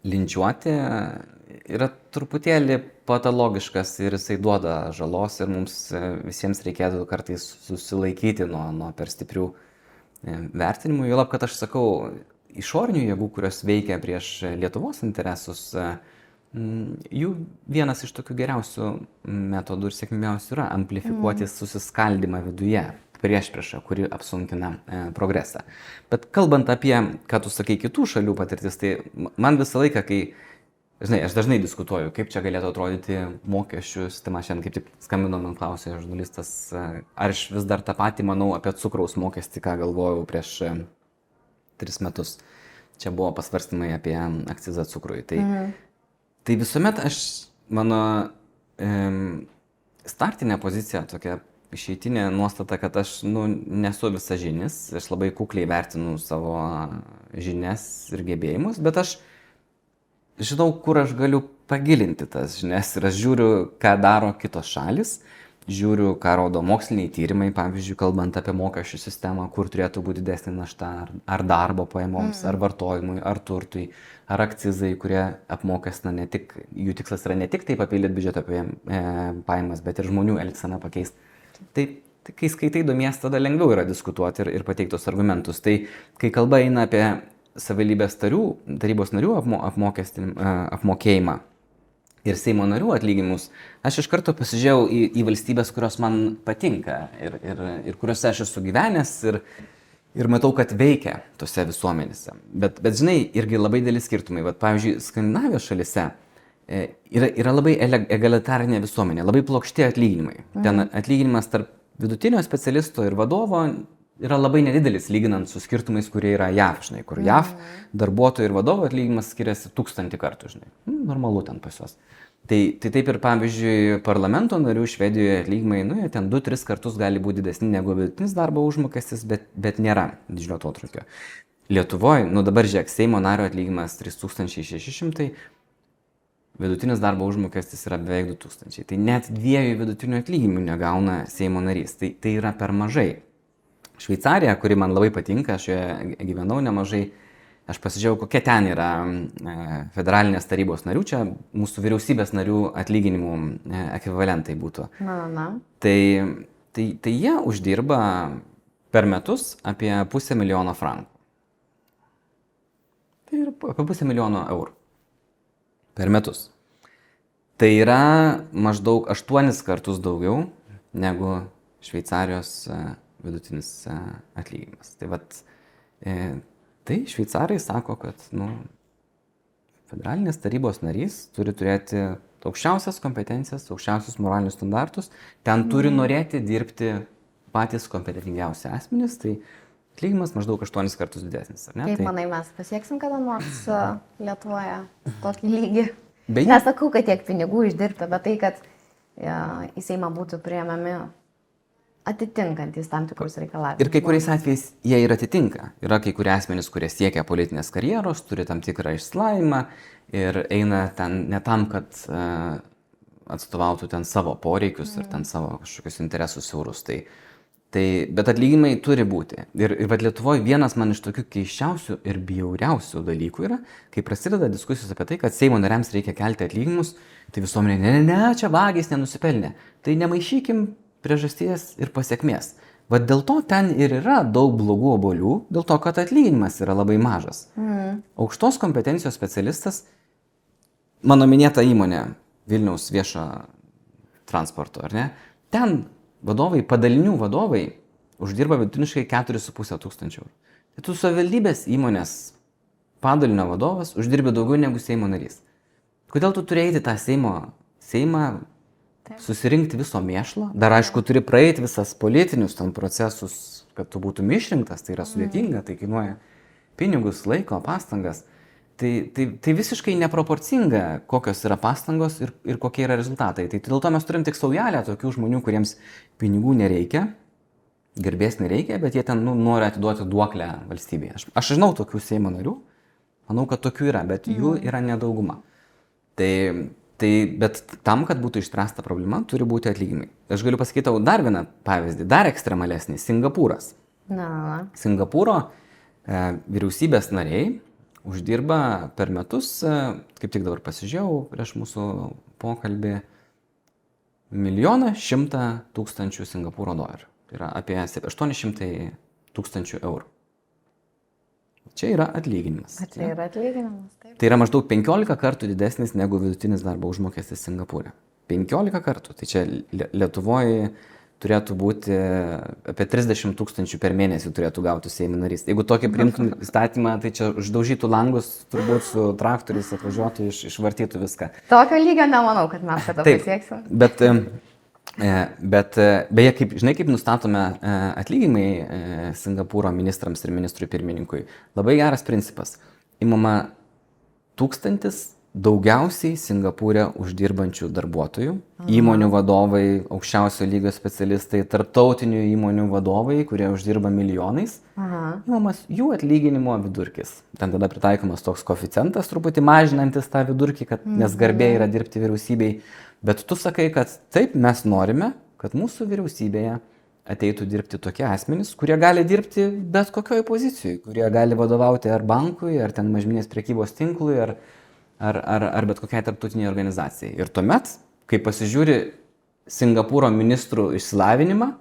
linčiuoti yra truputėlį patologiškas ir jisai duoda žalos ir mums visiems reikėtų kartais susilaikyti nuo per stiprių vertinimų. Juolab, kad aš sakau, išorinių jėgų, kurios veikia prieš Lietuvos interesus, jų vienas iš tokių geriausių metodų ir sėkmingiausių yra amplifikuoti susiskaldymą viduje. Priešpriešą, kuri apsunkina progresą. Bet kalbant apie, ką tu sakai, kitų šalių patirtis, tai man visą laiką, kai, žinai, aš dažnai diskutuoju, kaip čia galėtų atrodyti mokesčių sistema, šiandien kaip tik skambino man klausė žurnalistas, ar aš vis dar tą patį manau apie cukraus mokestį, ką galvojau prieš 3 metus. Čia buvo pasvarstymai apie akcizą cukrui. Tai visuomet mano startinė pozicija tokia, išeitinė nuostata, kad aš nesu visažinis, aš labai kukliai vertinu savo žinias ir gebėjimus, bet aš žinau, kur aš galiu pagilinti tas žinias ir aš žiūriu, ką daro kitos šalis, žiūriu, ką rodo moksliniai tyrimai, pavyzdžiui, kalbant apie mokesčių sistemą, kur turėtų būti didesnė našta, ar darbo pajamoms, ar vartojimui, ar turtui, ar akcizai, kurie apmokestina ne tik, jų tikslas yra ne tik taip papildyti biudžeto pajamas, bet ir žmonių elgseną pakeisti. Tai kai skaitai domies, tada lengviau yra diskutuoti ir pateiktos argumentus. Tai kai kalba eina apie savivaldybės tarybos narių apmokėjimą ir Seimo narių atlyginimus, aš iš karto pasižiūrėjau į valstybės, kurios man patinka ir kuriuose aš esu gyvenęs ir matau, kad veikia tose visuomenėse. Bet žinai, irgi labai dideli skirtumai. Vat, pavyzdžiui, Skandinavijos šalyse yra labai egalitarinė visuomenė, labai plokšti atlyginimai. Ten atlyginimas tarp vidutinio specialisto ir vadovo yra labai nedidelis, lyginant su skirtumais, kurie yra JAV, žinai, kur JAV darbuotojų ir vadovo atlyginimas skiriasi 1000 kartų, žinai. Normalu ten pas juos. Tai taip ir, pavyzdžiui, parlamento narių Švedijoje atlyginimai, jie ten 2-3 kartus gali būti didesni negu vidutinis darbo užmokestis, bet nėra didžiulio atotrūkio. Lietuvoje, dabar žiūrėk, Seimo nario atlyginimas 3600, vidutinis darbo užmokestis yra beveik 2000. Tai net 2 vidutinių atlyginimų negauna Seimo narys. Tai yra per mažai. Šveicarija, kuri man labai patinka, aš joje gyvenau nemažai, aš pasižiūrėjau, kokie ten yra federalinės tarybos narių, čia mūsų vyriausybės narių atlyginimų ekvivalentai būtų. Tai jie uždirba per metus apie 500 000 frankų. Tai yra apie 500 000 eurų. Per metus. Tai yra maždaug 8 kartus daugiau negu Šveicarijos vidutinis atlyginimas. Tai šveicarai sako, kad federalinės tarybos narys turi turėti aukščiausias kompetencijas, aukščiausius moralinius standartus, ten turi norėti dirbti patys kompetentingiausi asmenys, tai atlyginimas maždaug 8 kartus didesnis, ar ne? Kaip manai, mes pasieksim kada nors Lietuvoje tokį lygį? Nesakau, kad tiek pinigų išdirbta, bet tai, kad į Seimą būtų priėmami atitinkantys tam tikrus reikalavimus. Ir kai kuriais atvejais jie ir atitinka. Yra kai kurie asmenys, kurie siekia politinės karjeros, turi tam tikrą išsilavinimą ir eina ten ne tam, kad atstovautų ten savo poreikius ir ten savo kažkokius interesus siaurus. Bet atlyginimai turi būti. Ir Lietuvoje vienas man iš tokių keiščiausių ir bjauriausių dalykų yra, kai prasideda diskusijos apie tai, kad Seimo nariams reikia kelti atlyginimus, tai visuomenė, ne, čia vagys nenusipelnė. Tai nemaišykim priežasties ir pasiekmės. Vat dėl to ten ir yra daug blogų obuolių, dėl to, kad atlyginimas yra labai mažas. Aukštos kompetencijos specialistas, mano minėta įmonė, Vilniaus viešo transporto, ar ne? Ten vadovai, padalinių vadovai uždirba vidutiniškai 4,5 tūkstančių eurų. Tai tu savivaldybės įmonės padalinio vadovas uždirbi daugiau negu Seimo narys. Kodėl tu turi eiti tą Seimą susirinkti viso mėšlo? Dar aišku, turi praeiti visas politinius ten procesus, kad tu būtum išrinktas, tai yra sudėtinga, tai kainuoja pinigus, laiko, pastangas. Tai visiškai neproporcinga, kokios yra pastangos ir kokie yra rezultatai. Tai dėl to mes turim tik saujelę tokių žmonių, kuriems pinigų nereikia, garbės nereikia, bet jie ten nori atiduoti duoklę valstybėje. Aš žinau tokių Seimo narių, manau, kad tokių yra, bet jų yra nedauguma. Bet tam, kad būtų išspręsta problema, turi būti atlyginimai. Aš galiu pasakyti tau dar vieną pavyzdį, dar ekstremalesnį – Singapūras. Singapūro vyriausybės nariai uždirba per metus, kaip tik dabar pasižiūrėjau prieš mūsų pokalbį, 1 100 000 Singapūro dolerių. Tai yra apie 800 000 eurų. Čia yra atlyginimas. Tai yra atlyginimas, taip. Tai yra maždaug 15 kartų didesnis negu vidutinis darbo užmokestis Singapūre. 15 kartų. Tai čia Lietuvoje turėtų būti apie 30 000 per mėnesį turėtų gauti Seimo narys. Jeigu tokį priimtum įstatymą, tai čia uždaužytų langus, turbūt su traktoriais atvažiuotų, išvartytų viską. Tokio lygio nemanau, kad mes kada pasieksim. Bet beje, kaip nustatome atlyginimai Singapūro ministrams ir ministrui pirmininkui, labai geras principas. Imama 1000 daugiausiai Singapūre uždirbančių darbuotojų, įmonių vadovai, aukščiausio lygio specialistai, tarptautinių įmonių vadovai, kurie uždirba milijonais, imamas jų atlyginimo vidurkis. Ten tada pritaikomas toks koeficientas, truputį mažinantis tą vidurkį, nes garbė yra dirbti vyriausybei. Bet tu sakai, kad taip mes norime, kad mūsų vyriausybėje ateitų dirbti tokie asmenys, kurie gali dirbti bet kokioj pozicijoje, kurie gali vadovauti ar bankui, ar ten mažmeninės prekybos tinklui, ar bet kokiai tarptautiniai organizacijai. Ir tuomet, kai pasižiūri Singapūro ministrų išsilavinimą,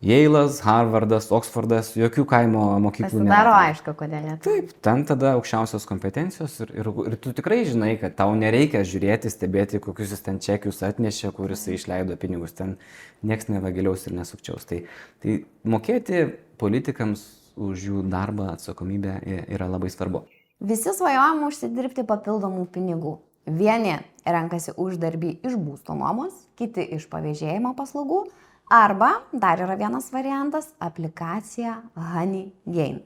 Yale'as, Harvardas, Oksfordas, jokių kaimo mokyklų nėra. Pasidaro aišku, kodėl ne. Taip, ten tada aukščiausios kompetencijos ir tu tikrai žinai, kad tau nereikia žiūrėti, stebėti, kokius jis ten čekius atnešė, kuris išleido pinigus, ten nieks nevagiliaus ir nesukčiaus. Tai mokėti politikams už jų darbą atsakomybę yra labai svarbu. Visi svajojam užsidirbti papildomų pinigų. Vieni renkasi uždarbį iš būsto nuomos, kiti iš pavėžėjimo paslaugų, arba dar yra vienas variantas – aplikacija HoneyGain.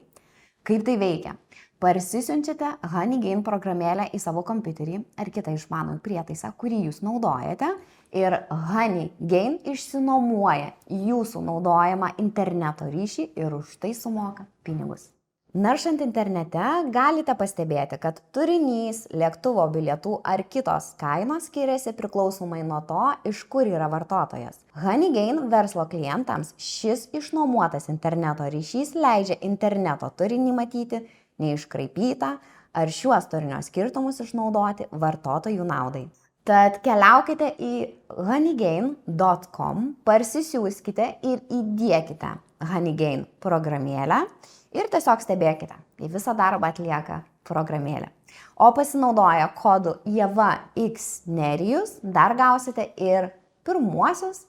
Kaip tai veikia? Parsisiunčiate HoneyGain programėlę į savo kompiuterį ar kitą išmanųjį prietaisą, kurį jūs naudojate, ir HoneyGain išsinuomoja jūsų naudojamą interneto ryšį ir už tai sumoka pinigus. Naršant internete galite pastebėti, kad turinys, lėktuvo bilietų ar kitos kainos skiriasi priklausomai nuo to, iš kur yra vartotojas. HoneyGain verslo klientams šis išnuomotas interneto ryšys leidžia interneto turinį matyti neiškraipytą ar šiuos turinio skirtumus išnaudoti vartotojų naudai. Tad keliaukite į honeygain.com, parsisiųskite ir įdiekite HoneyGain programėlę ir tiesiog stebėkite, kai visą darbą atlieka programėlė. O pasinaudoję kodu IEVAXNERIJUS dar gausite ir pirmuosius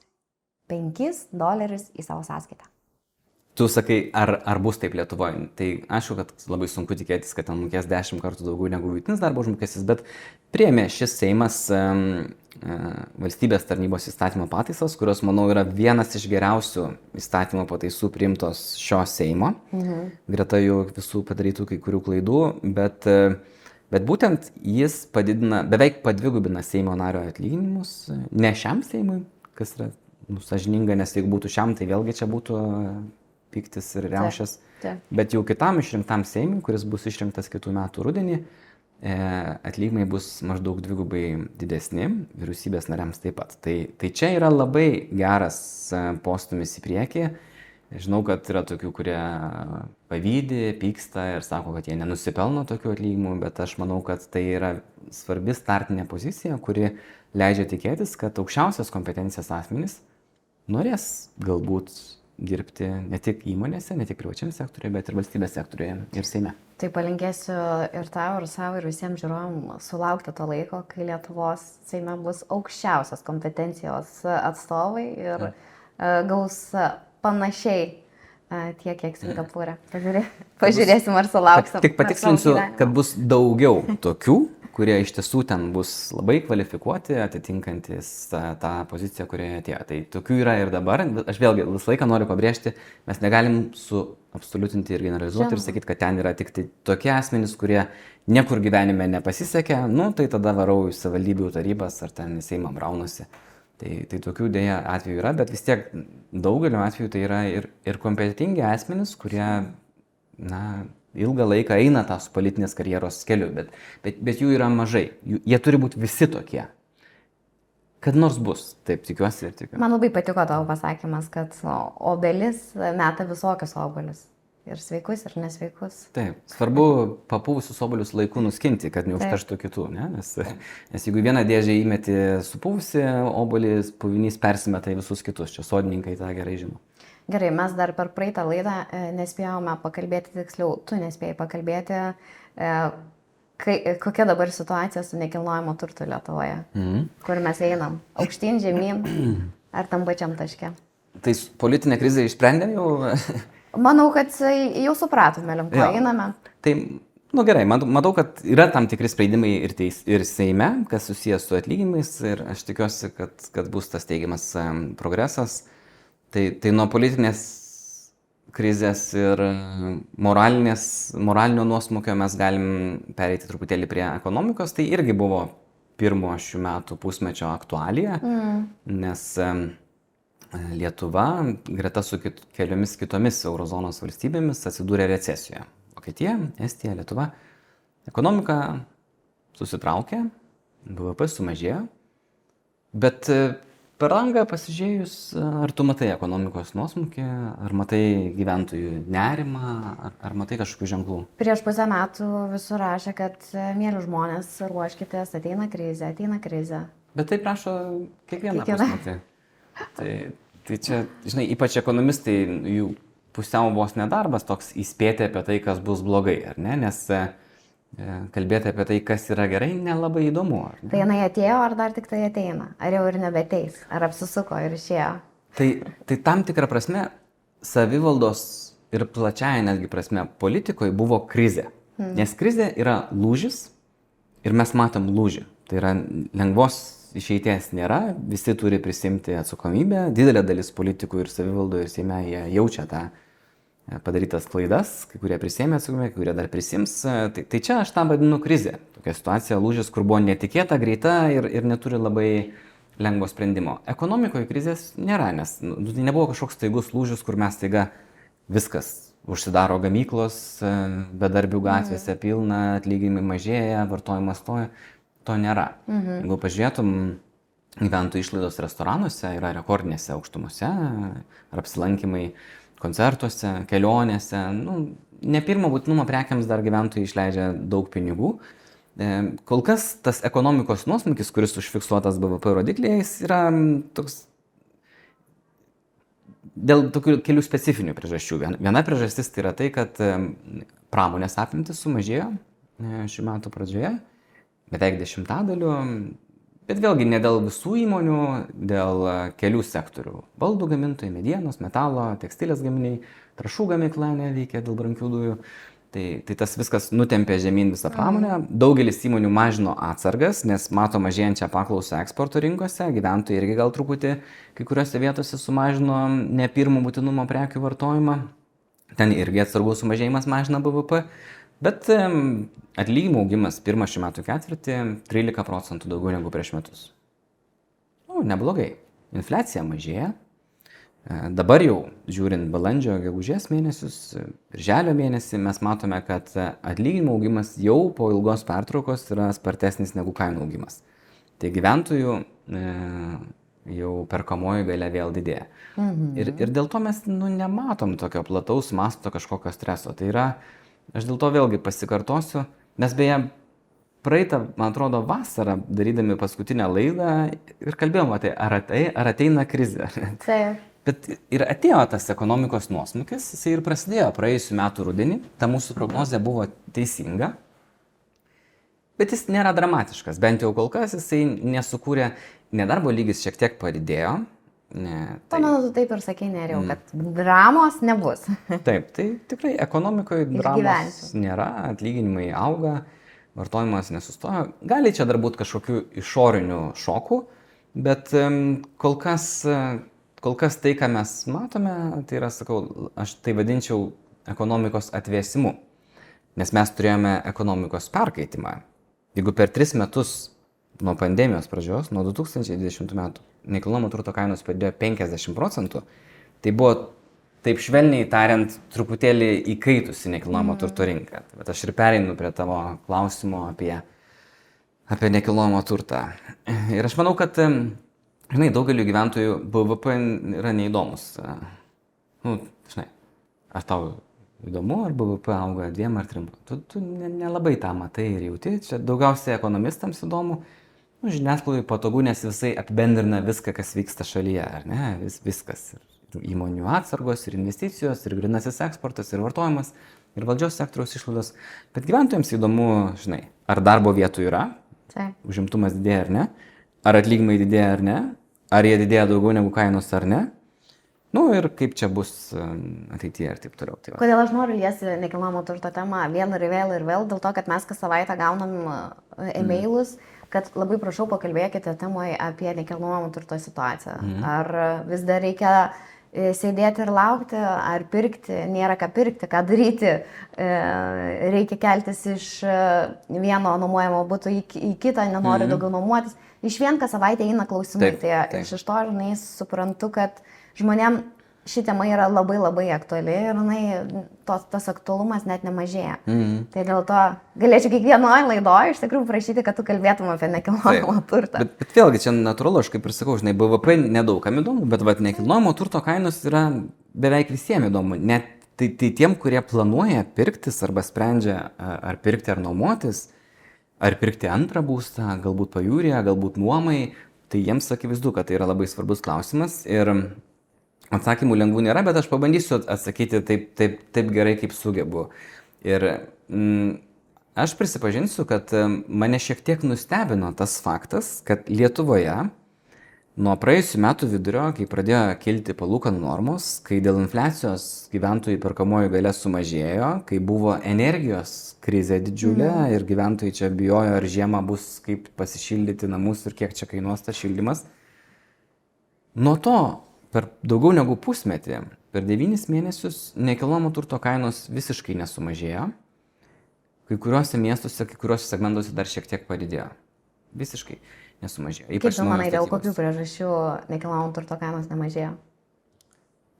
$5 į savo sąskaitą. Tu sakai, ar bus taip Lietuvoje? Tai aišku, kad labai sunku tikėtis, kad ten mokės 10 kartų daugiau negu vidutinis darbo užmokestis, bet priėmė šis Seimas valstybės tarnybos įstatymo pataisas, kurios, manau, yra vienas iš geriausių įstatymo pataisų priimtos šio Seimo. Greta jų visų padarytų kai kurių klaidų, bet būtent jis beveik padvigubina Seimo nario atlyginimus, ne šiam Seimui, kas yra sąžininga, nes jeigu būtų šiam, tai vėlgi čia būtų piktis ir riaušės. Bet jau kitam išrinktam Seimui, kuris bus išrinktas kitų metų rudenį, atlyginimai bus maždaug dvigubai didesni, vyriausybės nariams taip pat. Tai čia yra labai geras postumis į priekį. Žinau, kad yra tokių, kurie pavydi, pyksta ir sako, kad jie nenusipelno tokių atlyginimų, bet aš manau, kad tai yra svarbi startinė pozicija, kuri leidžia tikėtis, kad aukščiausias kompetencijos asmenys norės galbūt dirbti ne tik įmonėse, ne tik privačiam sektoriuje, bet ir valstybės sektoriuje ir Seime. Tai palinkėsiu ir tau, ir savo, ir visiems žiūrovam sulaukti to laiko, kai Lietuvos Seime bus aukščiausios kompetencijos atstovai ir gaus panašiai tiek, kiek Singapūre. Pažiūrėsim, ar sulauksim. Tik patikslinsiu, kad bus daugiau tokių, kurie iš tiesų ten bus labai kvalifikuoti, atitinkantis tą poziciją, kurioje atėjo. Tai tokių yra ir dabar. Aš vėlgi visą laiką noriu pabrėžti, mes negalim suabsoliutinti ir generalizuoti ir sakyti, kad ten yra tik tai tokie asmenys, kurie niekur gyvenime nepasisekė, tai tada varau į savivaldybių tarybas ar ten į Seimą braunusi. Tai tokių dėja atvejų yra, bet vis tiek daugeliu atveju tai yra ir kompetentingi asmenys, kurie, ilgą laiką eina tą su politinės karjeros keliu, bet jų yra mažai. Jie turi būti visi tokie. Kad nors bus, taip tikiuosi ir tikiuosi. Man labai patiko tavo pasakymas, kad obelis meta visokius obuolius. Ir sveikus, ir nesveikus. Taip, svarbu papūvusius obuolius laiku nuskinti, kad neužterštų kitų, ne? Nes jeigu vieną dėžę įmeti supūvusi obuolį, puvinys persimeta į visus kitus. Čia sodininkai tą gerai žino. Gerai, mes dar per praeitą laidą nespėjome pakalbėti, tiksliau, tu nespėjai pakalbėti, kokia dabar situacija su nekilnojamo turtu Lietuvoje, kur mes einam, aukštyn, žemyn, ar tam pačiam taške. Tai politinė krizė išsprendė jau? Manau, kad jau supratome, link ko einame. Tai, gerai, matau, kad yra tam tikri sprendimai ir Seime, kas susijęs su atlyginimais, ir aš tikiuosi, kad bus tas teigiamas progresas. Tai nuo politinės krizės ir moralinio nuosmukio mes galim pereiti truputėlį prie ekonomikos. Tai irgi buvo pirmo šių metų pusmečio aktualija, nes Lietuva, greta su keliomis kitomis eurozonos valstybėmis, atsidūrė recesijoje. Vokietija, Estija, Lietuva. Ekonomika susitraukė, BVP sumažėjo, bet per langą pasižiūrėjus, ar tu matai ekonomikos nuosmukį, ar matai gyventojų nerimą, ar matai kažkokių ženklų? Prieš pusę metų visur rašė, kad mėly žmonės, ruoškitės, ateina krizė. Bet tai prašo kiekvieną pusmetį. Tai čia, žinai, ypač ekonomistai, jų pusiau vos nedarbas toks įspėti apie tai, kas bus blogai, ar ne? Nes kalbėti apie tai, kas yra gerai, nelabai įdomu. Tai jinai atėjo, ar dar tik tai ateina? Ar jau ir nebeteis? Ar apsisuko ir išėjo? Tai tam tikrą prasme, savivaldos ir plačiaja netgi prasme politikoje buvo krizė. Nes krizė yra lūžis ir mes matom lūžį. Tai yra lengvos išeities nėra, visi turi prisimti atsakomybę, didelė dalis politikų ir savivaldoje ir Seime jie jaučia tą padarytas klaidas, kai kurie prisėmė atsakomybę, kai kurie dar prisims. Tai čia aš tą vadinu krizė. Tokia situacija, lūžis, kur buvo netikėta, greita ir neturi labai lengvo sprendimo. Ekonomikoje krizės nėra, nes tai nebuvo kažkoks staigus lūžis, kur mes staiga viskas užsidaro gamyklos, bedarbių gatvėse pilna, atlyginimai mažėja, vartojimas stoja. To nėra. Jeigu pažiūrėtum, gyventojų išlaidos restoranuose yra rekordinėse aukštumose, ar apsilankymai koncertuose, kelionėse. Ne pirmo būtinumo prekiams dar gyventojai išleidžia daug pinigų. Kol kas tas ekonomikos nuosmukis, kuris užfiksuotas BVP rodikliais, yra toks dėl tokių kelių specifinių priežasčių. Viena priežastis tai yra tai, kad pramonės apimtis sumažėjo šių metų pradžioje. Beveik 10%, bet vėlgi ne dėl visų įmonių, dėl kelių sektorių. Baldų gamintojai, medienos, metalo, tekstilės gaminiai, trąšų gamykla neveikia dėl brangių dujų. Tai tas viskas nutempė žemyn visą pramonę. Daugelis įmonių mažino atsargas, nes mato mažėjančią paklausą eksporto rinkose. Gyventojai irgi gal truputį kai kuriuose vietose sumažino ne pirmo būtinumo prekių vartojimą. Ten irgi atsargų sumažėjimas mažina BVP. Bet atlyginimų augimas pirmą šių metų ketvirtį 13% daugiau negu prieš metus. Neblogai. infliacija mažėja. Dabar jau, žiūrint balandžio, gegužės mėnesius, birželio mėnesį, mes matome, kad atlyginimų augimas jau po ilgos pertraukos yra spartesnis negu kainų augimas. Tai gyventojų jau perkamoji galia vėl didėja. Ir dėl to mes nematom tokio plataus masto kažkokio streso. Tai yra, aš dėl to vėlgi pasikartosiu, mes beje praeitą, man atrodo, vasarą, darydami paskutinę laidą ir kalbėjom apie ar ateina krizė. Taip. Bet ir atėjo tas ekonomikos nuosmukis, jisai ir prasidėjo praėjusiu metu rudenį, ta mūsų prognozė buvo teisinga, bet jis nėra dramatiškas, bent jau kol kas jisai nesukūrė, nedarbo lygis šiek tiek padidėjo. Pamenu, tu taip ir sakei, Nerijau, kad dramos nebus. Taip, tai tikrai ekonomikoje dramos nėra, atlyginimai auga, vartojimas nesustojo. Gali čia dar būti kažkokių išorinių šokų, bet kol kas tai, ką mes matome, tai yra, sakau, aš tai vadinčiau ekonomikos atvėsimu, nes mes turėjome ekonomikos perkaitimą. Jeigu per 3 metus nuo pandemijos pradžios, nuo 2020 metų, nekilnojamo turto kainos padidėjo 50%, tai buvo, taip švelniai tariant, truputėlį įkaitusi nekilnojamo turto rinka. Bet aš ir pereinu prie tavo klausimo apie nekilnojamo turtą. Ir aš manau, kad daugeliu gyventojų BVP yra neįdomus. Ar tau įdomu, ar BVP auga 2 ar 3? Tu nelabai tą matai ir jauti. Čia daugiausiai ekonomistams įdomu. Žiniasklaidai patogu, nes visai apibendrina viską, kas vyksta šalyje, ar ne? Viskas. Ir įmonių atsargos, ir investicijos, ir grynasis eksportas, ir vartojimas, ir valdžios sektoriaus išlaidos. Bet gyventojams įdomu, ar darbo vietų yra, užimtumas didėja ar ne, ar atlyginimai didėja ar ne, ar jie didėja daugiau negu kainos ar ne. Ir kaip čia bus ateityje ir taip toliau. Tai kodėl aš noriu liesti nekilnojamo turto temą vėl ir vėl, dėl to, kad mes kas savaitę gaunam e-mailus, kad labai prašau pakalbėkite temoje apie nekilnojamo turto situaciją. Ar vis dar reikia sėdėti ir laukti, ar pirkti, nėra ką pirkti, ką daryti, reikia keltis iš vieno nuomojamo buto į kitą, nenori daugiau nuomotis. Iš vien kas savaitę eina klausimai, tai iš to, suprantu, kad žmonėm ši tema yra labai labai aktuali ir tas aktualumas net nemažėja. Tai dėl to galėčiau kiekvienoje laidoje iš tikrųjų prašyti, kad tu kalbėtum apie nekilnojamo turtą. Bet vėlgi čia natūralu, aš kaip ir sakau, BVP nedaugam įdomu, bet nekilnojamo turto kainos yra beveik visiems įdomu. Net tai tiem, kurie planuoja pirktis arba sprendžia ar pirkti ar nuomotis, ar pirkti antrą būstą, galbūt pajūryje, galbūt nuomai, tai jiems akivaizdu, kad tai yra labai svarbus klausimas ir atsakymų lengvų nėra, bet aš pabandysiu atsakyti taip gerai, kaip sugebu. Ir aš prisipažinsiu, kad mane šiek tiek nustebino tas faktas, kad Lietuvoje nuo praėjusių metų vidurio, kai pradėjo kilti palūkanų normos, kai dėl infliacijos gyventojų perkamoji galia sumažėjo, kai buvo energijos krizė didžiulė ir gyventojai čia bijojo, ar žiemą bus kaip pasišildyti namus ir kiek čia kainuos tas šildymas. Nuo to per daugiau negu pusmetį, per 9 mėnesius nekilnojamo turto kainos visiškai nesumažėjo. Kai kuriuose miestuose, kai kuriuose segmentuose dar šiek tiek padidėjo. Visiškai nesumažėjo. Kaip tu manai, dėl kokių priežasčių nekilnojamo turto kainos nemažėjo?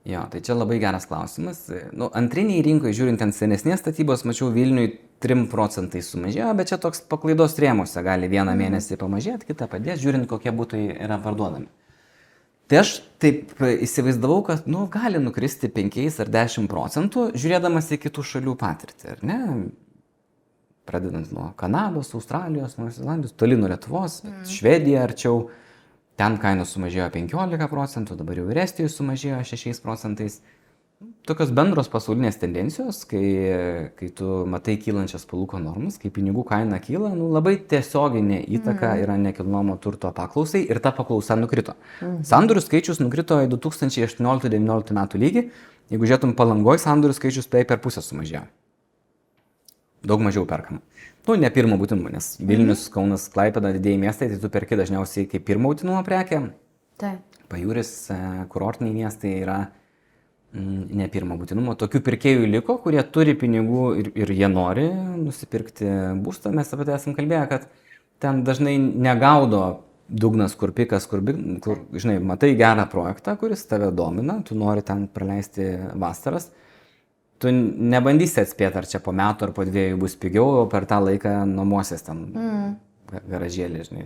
Jo, tai čia labai geras klausimas. Antriniai rinkoje, žiūrint ant senesnės statybos, mačiau Vilniui 3% sumažėjo, bet čia toks paklaidos rėmuose gali vieną mėnesį pamažėti, kitą padėti, žiūrint kokie būtai yra parduodami. Tai aš taip įsivaizdavau, kad gali nukristi 5 ar 10%, žiūrėdamas į kitų šalių patirtį, ar ne? Pradedant nuo Kanados, Australijos, Naujosios Zelandijos, toli nuo Lietuvos, Švedija arčiau, ten kainos sumažėjo 15%, dabar jau ir Estijoje sumažėjo 6%. Tokios bendros pasaulinės tendencijos, kai tu matai kylančias palūkanų normas, kai pinigų kaina kyla, labai tiesioginė įtaka yra nekilnojamo turto paklausai ir ta paklausa nukrito. Sandorių skaičius nukrito į 2018-2019 metų lygį, jeigu žiūrėtum Palangoj, sandorių skaičius beveik per pusę sumažėjo. Daug mažiau perkama. Ne pirmo būtinumo, nes Vilnius, Kaunas, Klaipėda, didieji miestai, tai tu perki dažniausiai kaip pirmo būtinumo prekę. Pajūris, kurortiniai miestai yra ne pirmo būtinumo. Tokių pirkėjų liko, kurie turi pinigų ir jie nori nusipirkti būstą. Mes apie tai esam kalbėję, kad ten dažnai negaudo dugnas, kur pikas, kur, žinai, matai gerą projektą, kuris tave domina, tu nori ten praleisti vasaras, tu nebandysi atspėti, ar čia po metų ar po 2 bus pigiau, o per tą laiką nuomosies ten garažėlį, žinai.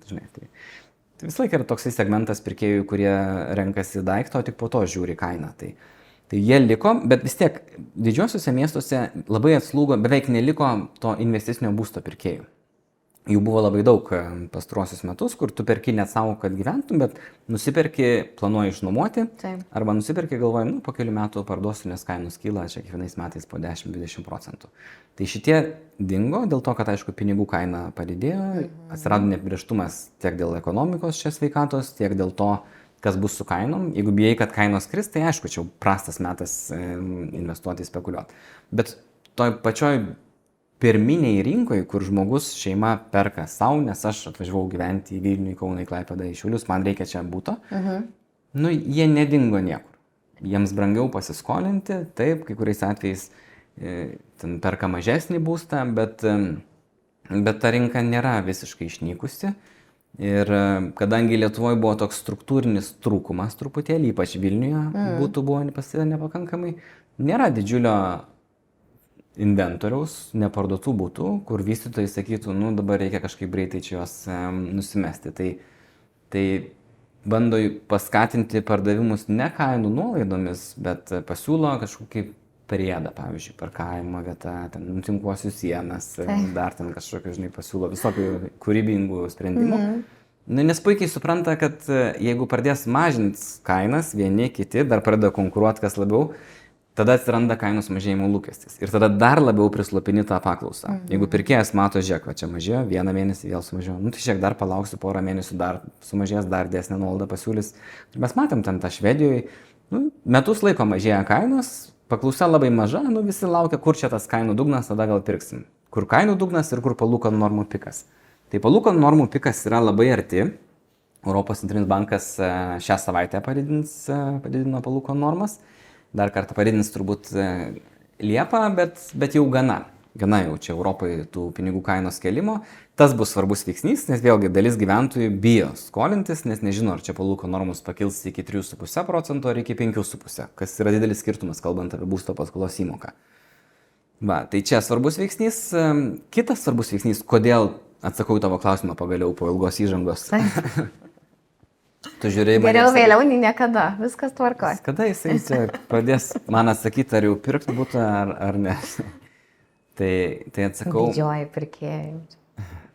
Žinai, tai vis laik yra toksai segmentas pirkėjų, kurie renkasi daiktą, o tik po to žiūri kainą. Tai jie liko, bet vis tiek didžiosiuose miestuose labai atslūgo, beveik neliko to investicinio būsto pirkėjų. Jų buvo labai daug pastaruosius metus, kur tu perki net savo, kad gyventum, bet nusiperki, planuoji išnuomoti, arba nusiperki, galvoji, po kelių metų parduosiu, nes kainos kyla čia kiekvienais metais po 10-20%. Tai šitie dingo dėl to, kad, aišku, pinigų kaina padidėjo, atsirado neapibrėžtumas tiek dėl ekonomikos čia sveikatos, tiek dėl to, kas bus su kainom. Jeigu bijai, kad kainos kris, tai aišku, čia prastas metas investuoti, spekuliuoti. Bet toj pačioj pirminiai rinkoje, kur žmogus šeima perka savo, nes aš atvažiavau gyventi į Vilnių, į Kauną, į Klaipėdą, į Šiaulius, man reikia čia būto, jie nedingo niekur. Jiems brangiau pasiskolinti, taip, kai kuriais atvejais ten perka mažesnį būstą, bet ta rinka nėra visiškai išnykusi. Ir kadangi Lietuvoje buvo toks struktūrinis trūkumas truputėlį, ypač Vilniuje būtų buvo pasidė nepakankamai, nėra didžiulio inventoriaus, neparduotų būtų, kur vystytojai sakytų, dabar reikia kažkaip greitai čia juos nusimesti. Tai bando paskatinti pardavimus ne kainų nuolaidomis, bet pasiūlo kažkokį priedą, pavyzdžiui, parkavimo vietą, ten nutinkuosiu sienas, dar ten kažkokio, žinai, pasiūlo visokių kūrybingų sprendimų. Nes puikiai supranta, kad jeigu pradės mažinti kainas, vieni, kiti, dar pradeda konkuruoti kas labiau, tada atsiranda kainos mažėjimo lūkestis. Ir tada dar labiau prislopini tą paklausą. Jeigu pirkėjas mato, žiūrėk, va čia mažėjo, 1 mėnesį vėl sumažėjo, tai žiūrėk, dar palauksiu porą mėnesių, dar sumažės, dar didesnę nuolaidą pasiūlys. Ir mes matėm ten tą Švedijoje, metus laiko mažėja kainos, paklausa labai maža, visi laukia, kur čia tas kainų dugnas, tada gal pirksim. Kur kainų dugnas ir kur palūkanų normų pikas. Tai palūkanų normų pikas yra labai arti. Europos centrinis bankas šią savaitę padidino palūkanų normas. Dar kartą padidins turbūt Liepą, bet jau gana jau čia Europoje tų pinigų kainos kelimo. Tas bus svarbus veiksnys, nes vėlgi dalis gyventojų bijo skolintis, nes nežino, ar čia palūkanų normos pakils iki 3,5% ar iki 5,5%, kas yra didelis skirtumas, kalbant apie būsto paskolos įmoką. Tai čia svarbus veiksnys. Kitas svarbus veiksnys, kodėl, atsakau į tavo klausimą pagaliau po ilgos įžangos. Geriau vėliau nei niekada, viskas tvarkoja. Kada jisai čia pradės man atsakyti, ar jau pirkti būtą, ar ne. Tai atsakau. Didžioji pirkėjai.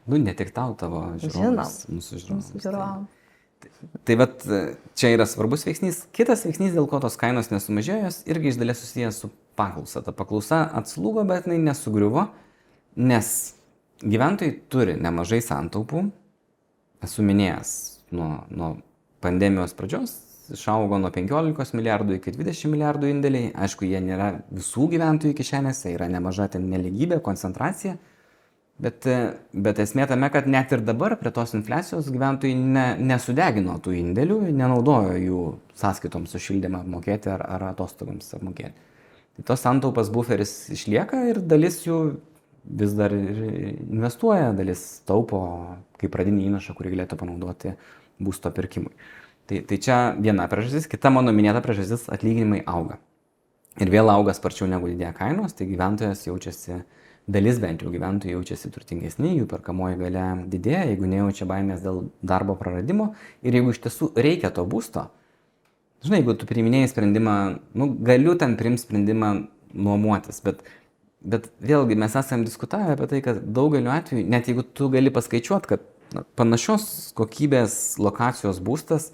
Ne tik tau, tavo žiūrovams. Mūsų žiūrovams. Tai vat čia yra svarbus veiksnys. Kitas veiksnys, dėl ko tos kainos nesumažėjo, irgi iš dalies susijęs su paklausa. Ta paklausa atslūgo, bet jinai nesugriuvo, nes gyventojai turi nemažai santaupų. Esu minėjęs nuo pandemijos pradžios išaugo nuo 15 milijardų iki 20 milijardų indėliai. Aišku, jie nėra visų gyventojų kišenėse, yra nemaža ten nelygybė, koncentracija. Bet esmė tame, kad net ir dabar prie tos infliacijos gyventojai nesudegino tų indėlių, nenaudojo jų sąskaitoms už šildymą apmokėti ar atostogams apmokėti. Tai tos santaupas buferis išlieka ir dalis jų vis dar investuoja, dalis taupo kaip pradinį įnašą, kurį galėtų panaudoti būsto pirkimui. Tai čia viena priežastis, kita mano minėta priežastis, atlyginimai auga. Ir vėl auga sparčiau negu didėja kainos, tai gyventojas jaučiasi, dalis bent jau gyventojų jaučiasi turtingesni, jų perkamoji galia didėja, jeigu nejaučia baimės dėl darbo praradimo ir jeigu iš tiesų reikia to būsto. Žinai, jeigu tu priiminėjai sprendimą, galiu ten priimti sprendimą nuomotis, bet vėlgi mes esame diskutavę apie tai, kad daugeliu atveju, net jeigu tu gali paskaičiuoti, kad panašios kokybės lokacijos būstas,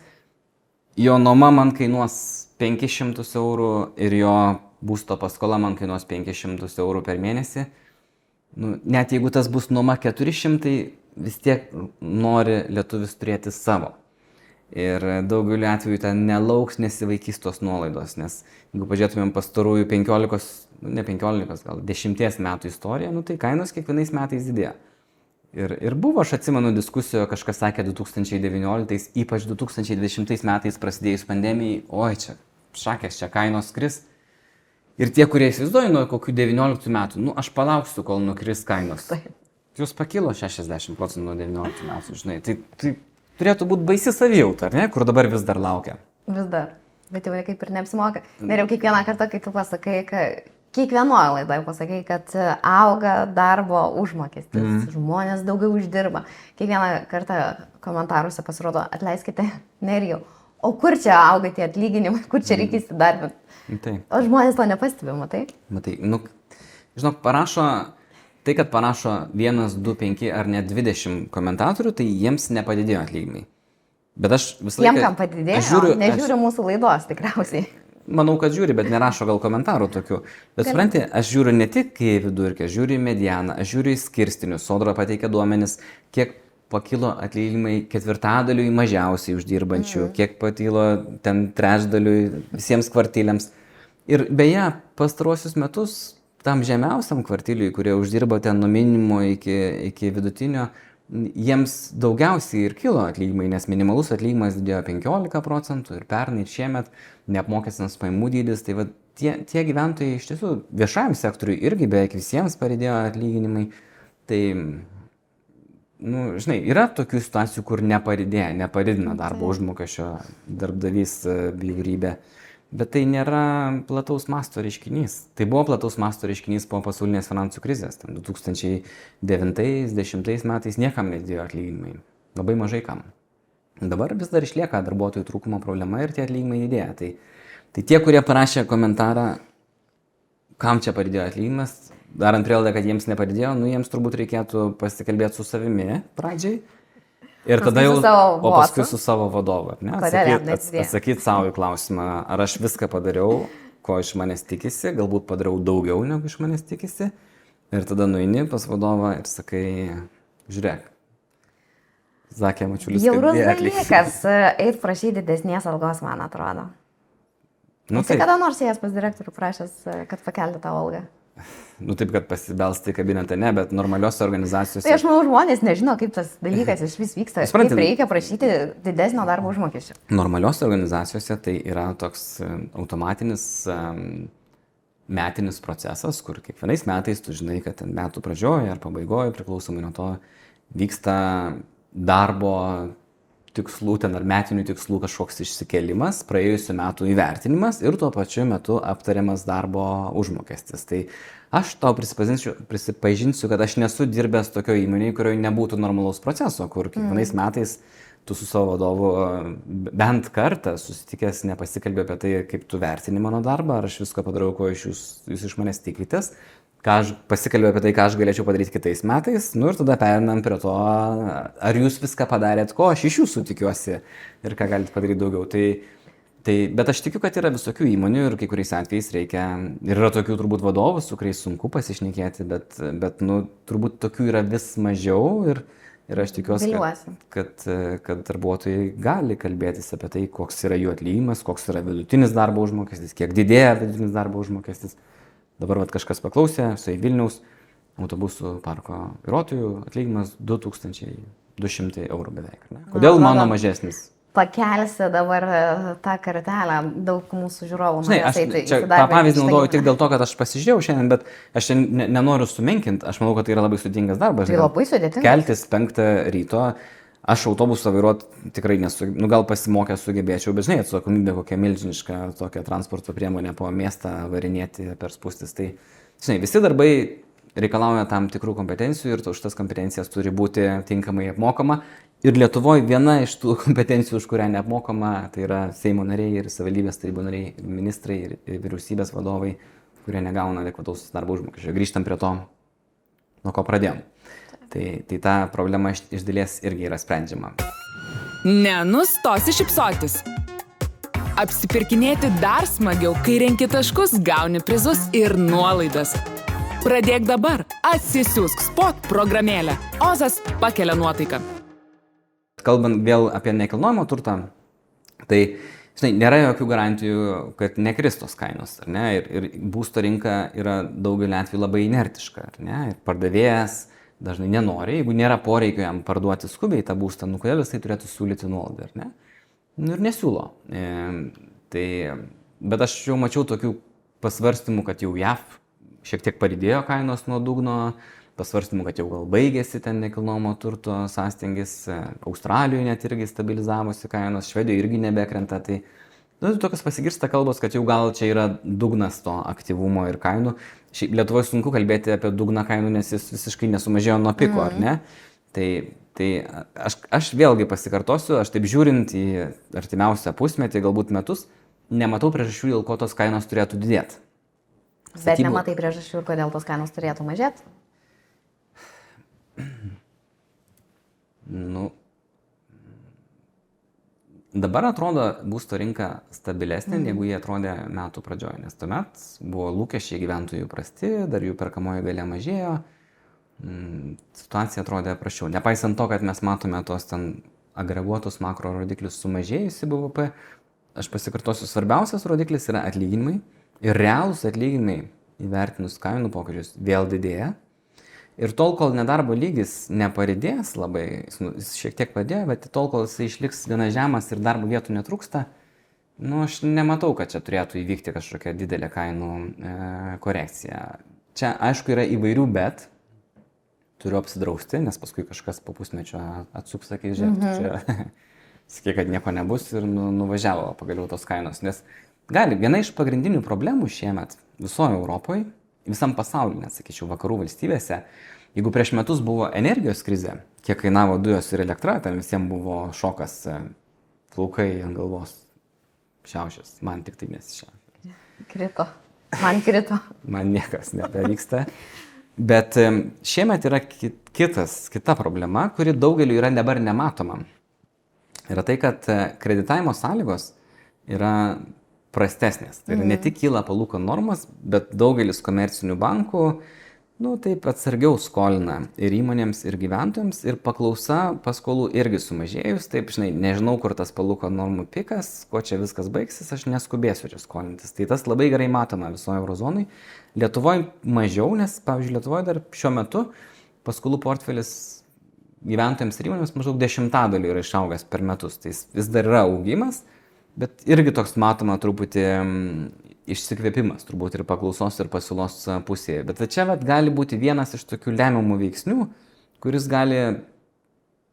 jo nuoma man kainuos 500 eurų ir jo būsto paskola man kainuos 500 eurų per mėnesį. Net jeigu tas bus nuoma 400, vis tiek nori lietuvis turėti savo. Ir daugeliu atveju ten nelauks, nesivaikys tos nuolaidos, nes jeigu pažiūrėtumėm pastarųjų 10 metų istoriją, tai kainos kiekvienais metais didėja. Ir buvo, aš atsimenu diskusijoje, kažkas sakė 2019, ypač 2020 metais prasidėjus pandemijai, oi čia, šakės, čia kainos kris. Ir tie, kurie įsivaizduoja nuo kokių 19 metų, aš palauksiu, kol nukris kainos. Jūs pakilo 60% nuo 19 metų, žinai. Tai turėtų būti baisi savijauta, ar ne, kur dabar vis dar laukia. Vis dar. Bet jau kaip ir neapsimoka. Ir jau kiekvieną kartą, kai tu pasakai, kad kiekvienoje laidoje pasakai, kad auga darbo užmokestis, žmonės daugiau uždirba. Kiekvieną kartą komentaruose pasirodo, atleiskite, Nerijau, o kur čia auga tie atlyginimai, kur čia reikia įsidarbinti. Tai. O žmonės to nepastebė, matai? Matai, žinok, tai, kad parašo 1, 2, 5 ar net 20 komentatorių, tai jiems nepadidėjo atlyginimai. Bet aš visą laiką... Tiem, kam padidėjo, nežiūri mūsų laidos tikriausiai. Manau, kad žiūri, bet nerašo gal komentarų tokių. Bet supranti, aš žiūriu ne tik į vidurkį, aš žiūriu į medianą, aš žiūriu į skirstinius. Sodra pateikia duomenis, kiek pakilo atlyginimai ketvirtadaliui mažiausiai uždirbančių, kiek pakilo ten trečdaliui visiems kvartiliams. Ir beje, pastaruosius metus tam žemiausiam kvartiliui, kurie uždirba ten nuo minimumo iki vidutinio, jiems daugiausiai ir kilo atlyginimai, nes minimalus atlyginimas didėjo 15% ir pernai ir šiemet neapmokestinas pajamų dydis. Tai va, tie gyventojai iš tiesų viešajam sektoriui irgi beveik visiems padidėjo atlyginimai. Tai, žinai, yra tokių situacijų, kur nepadidina darbo užmokesčio darbdavys bjaurybė. Bet tai nėra plataus masto reiškinys. Tai buvo plataus masto reiškinys po pasaulinės finansų krizės. 2009-2010 metais niekam nedidėjo atlyginimai. Labai mažai kam. Dabar vis dar išlieka darbuotojų trūkumo problema ir tie atlyginimai didėja. Tai tie, kurie parašė komentarą, kam čia padidėjo atlyginimas, darant prielaidą, kad jiems nepadidėjo, jiems turbūt reikėtų pasikalbėti su savimi pradžiai. Ir tada jau, o paskui su savo vadovu, ne? Atsakyti savo į klausimą, ar aš viską padariau, ko iš manęs tikisi, galbūt padariau daugiau, negu iš manęs tikisi. Ir tada nueini pas vadovą ir sakai, žiūrėk, Zakė Mačiulis, bjaurus dalykas, eit prašyti didesnės algos, man atrodo. Tai kada nors ėjęs pas direktorių prašęs, kad pakelti tą algą? Taip, kad pasibelsti į kabinetą, ne, bet normaliuose organizacijose... Tai aš manau, žmonės nežino, kaip tas dalykas iš vis vyksta. Kaip reikia prašyti didesnio darbo užmokesčio. Normaliuose organizacijose tai yra toks automatinis metinis procesas, kur kiekvienais metais tu žinai, kad metų pradžioje ar pabaigoje, priklausomai nuo to, vyksta darbo tikslų, ten ar metinių tikslų kažkoks išsikėlimas, praėjusių metų įvertinimas ir tuo pačiu metu aptariamas darbo užmokestis. Tai aš tau prisipažinsiu, kad aš nesu dirbęs tokio įmonėje, kurioje nebūtų normalaus proceso, kur kiekvienais metais tu su savo vadovu bent kartą susitikęs nepasikalbė apie tai, kaip tu vertini mano darbą, ar aš viską padarau, ko jūs iš manęs tikitės. Pasikalbėjau apie tai, ką aš galėčiau padaryti kitais metais, ir tada perinam prie to, ar jūs viską padarėt, ko aš iš jūsų tikiuosi ir ką galite padaryti daugiau. Bet aš tikiu, kad yra visokių įmonių ir kai kuriais atvejais reikia, ir yra tokių turbūt vadovų, su kuriais sunku pasišnekėti, bet turbūt tokių yra vis mažiau ir aš tikiuosi, kad darbuotojai gali kalbėtis apie tai, koks yra jų atlyginimas, koks yra vidutinis darbo užmokestis, kiek didėja vidutinis darbo užmokestis. Dabar kažkas paklausė, štai Vilniaus autobusų parko vairuotojų atlyginimas 2200 eurų beveik. Ne? Kodėl mano mažesnis? Pakelsi dabar tą kartelę, daug mūsų žiūrovų. Tą pavyzdį naudoju tik dėl to, kad aš pasižiūrėjau šiandien, bet aš nenoriu sumenkinti, aš manau, kad tai yra labai sudėtingas darbas. Tai labai sudėtingas. Keltis 5 ryto. Aš autobusą vairuoti tikrai gal pasimokęs sugebėčiau, bet atsakomybė kokia milžiniška tokia transporto priemonė po miestą varinėti per spūstis. Tai, visi darbai reikalauja tam tikrų kompetencijų ir už tas kompetencijas turi būti tinkamai apmokama. Ir Lietuvoje viena iš tų kompetencijų, už kurią neapmokama, tai yra Seimo nariai ir savivaldybės tarybų nariai, ir ministrai ir vyriausybės vadovai, kurie negauna adekvataus darbo užmokesčio. Grįžtam prie to, nuo ko pradėjom. Tai ta problema iš dalies irgi yra sprendžiama. Nenustosi šypsotis. Apsipirkinėti dar smagiau, kai renki taškus, gauni prizus ir nuolaidas. Pradėk dabar. Atsisiųsk Spot programėlę. Ozas pakelia nuotaiką. Kalbant vėl apie nekilnojamo turtą, tai nėra jokių garantijų, kad nekris tos kainos. Ar ne? Ir būsto rinka yra daugelį atvejų labai inertiška. Ar ne? Ir pardavėjas dažnai nenori, jeigu nėra poreikio jam parduoti skubiai tą būstą, kodėl jis tai turėtų siūlyti nuolaidą, ar ne? Ir nesiūlo. Bet aš jau mačiau tokių pasvarstymų, kad jau JAV šiek tiek padidėjo kainos nuo dugno, pasvarstymų, kad jau gal baigėsi ten nekilnojamo turto sąstingis, Australijoje net irgi stabilizavosi kainos, Švedijoje irgi nebekrenta. Tai tokios pasigirsta kalbos, kad jau gal čia yra dugnas to aktyvumo ir kainų. Šiaip Lietuvoje sunku kalbėti apie dugną kainų, nes jis visiškai nesumažėjo nuo piko, ar ne? Tai aš vėlgi pasikartosiu, aš taip žiūrint į artimiausią pusmetį, galbūt metus, nematau priežasčių, dėl ko tos kainos turėtų didėti. Bet nematai priežasčių, ir kodėl tos kainos turėtų mažėti? Dabar atrodo būsto rinka stabilesnė, negu jie atrodė metų pradžioje, nes tuomet buvo lūkesčiai gyventojų prasti, dar jų perkamoji galia mažėjo, situacija atrodė prasčiau. Nepaisant to, kad mes matome tos ten agreguotus makro rodiklius sumažėjusi BVP, aš pasikartosiu, svarbiausias rodiklis yra atlyginimai ir realūs atlyginimai įvertinus kainų pokyčius vėl didėja. Ir tol, kol nedarbo lygis neparidės labai, jis šiek tiek padėjo, bet tol, kol jis išliks gana žemas ir darbo vietų netrūksta, aš nematau, kad čia turėtų įvykti kažkokia didelė kainų korekcija. Čia, aišku, yra įvairių, bet turiu apsidrausti, nes paskui kažkas po pusmečio atsuks, sakys, žiūrėk, čia sakė, kad nieko nebus ir nuvažiavo pagaliau tos kainos. Nes viena iš pagrindinių problemų šiemet visoje Europoje, visam pasaulyje, net sakyčiau, vakarų valstybėse, jeigu prieš metus buvo energijos krizė, kiek kainavo dujos ir elektra, ten visiems buvo šokas, plaukai ant galvos šiaušės, man tik tai nesišiaušė. Krito, man krito. Man niekas nebevyksta. Bet šiemet yra kita problema, kuri daugeliu yra dabar nematoma. Yra tai, kad kreditavimo sąlygos yra prastesnės. Tai ne tik kyla palūkanų normos, bet daugelis komercinių bankų, taip atsargiau skolina ir įmonėms, ir gyventojams, ir paklausa paskolų irgi sumažėjus. Taip, nežinau, kur tas palūkanų normų pikas, ko čia viskas baigsis, aš neskubėsiu čia skolintis. Tai tas labai gerai matoma visoje eurozonai. Lietuvoje mažiau, nes, pavyzdžiui, Lietuvoje dar šiuo metu paskolų portfelis gyventojams ir įmonėms maždaug 10% yra išaugęs per metus. Tai vis dar yra augimas. Bet irgi toks matoma truputį išsikvėpimas, turbūt ir paklausos ir pasiūlos pusėje. Bet čia gali būti vienas iš tokių lemiamų veiksnių, kuris gali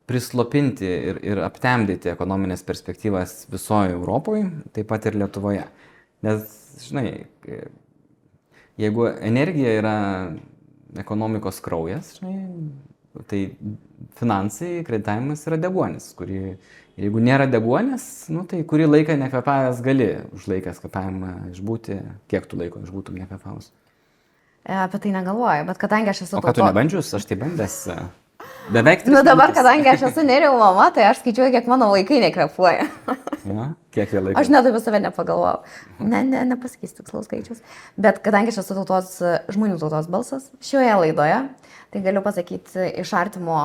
prislopinti ir aptemdyti ekonominės perspektyvas visoje Europoje, taip pat ir Lietuvoje. Nes, jeigu energija yra ekonomikos kraujas, tai finansai, kreditavimas yra deguonis, jeigu nėra deguonės, tai kurį laiką nekvepavęs gali užlaikęs kvepavimą išbūti, kiek tu laiko išbūtum nekvepavus? Apie tai negalvoju, bet kadangi aš esu... O ką tu nebandžius, aš tai bandęs beveik 3 dabar, metus. Kadangi aš esu nerijų mama, tai aš skaičiuoju, kiek mano vaikai nekvepuoja. Kiek jie laiko? Aš net apie save nepagalvojau. Nepasakysiu tikslaus skaičius. Bet kadangi aš esu žmonių tautos balsas šioje laidoje, tai galiu pasakyti iš artimo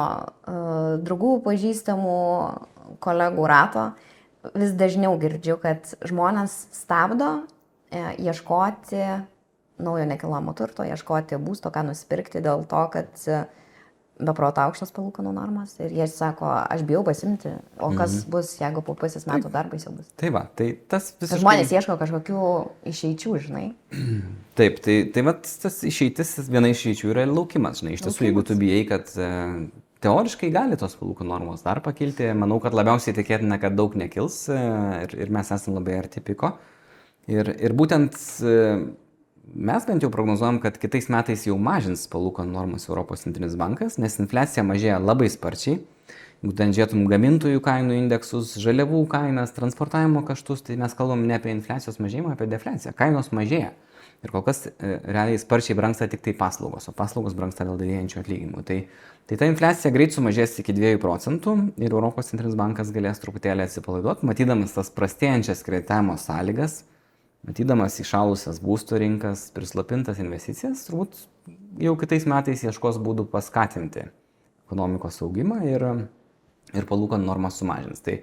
draugų, pažįstamų, kolegų rato, vis dažniau girdžiu, kad žmonės stabdo ieškoti naujo nekilnojamo turto, ieškoti būsto, ką nusipirkti dėl to, kad beproto aukštos palūkanų normos ir jie sako, aš bijau pasimti, o kas bus, jeigu po pusės metų dar baisiau bus. Tai va, tai tas visiškai... Žmonės ieško kažkokių išeičių, Taip, tai tas išeitis, viena išeičių yra laukimas, Iš tiesų, jeigu tu bijai, kad teoriškai gali tos palūkanų normos dar pakilti, manau, kad labiausiai tikėtina, kad daug nekils ir mes esame labai arti piko. Ir būtent mes bent jau prognozuojam, kad kitais metais jau mažins palūkanų normas Europos centrinis bankas, nes infliacija mažėja labai sparčiai. Jeigu ten žiūrėtum gamintojų kainų indeksus, žaliavų kainas, transportavimo kaštus, tai mes kalbam ne apie infliacijos mažėjimą, apie defliaciją. Kainos mažėja. Ir kol kas realiai sparčiai brangsta tik tai paslaugos, o paslaugos brangsta dėl didėjančių atlyginimų. Tai ta infliacija greit sumažės iki 2% ir Europos centrinis bankas galės truputėlį atsipalaiduoti, matydamas tas prastėjančias kreditavimo sąlygas, matydamas įšalusias būsto rinkas, prislopintas investicijas, turbūt jau kitais metais ieškos būdų paskatinti ekonomikos augimą ir palūkanų normas sumažins. Tai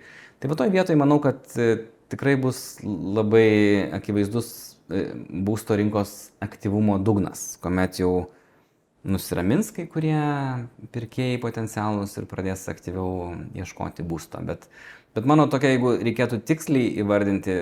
va toj vietoj manau, kad tikrai bus labai akivaizdus būsto rinkos aktyvumo dugnas, kuomet jau nusiramins kai kurie pirkėjai potencialūs ir pradės aktyviau ieškoti būsto. Bet mano tokia, jeigu reikėtų tiksliai įvardinti,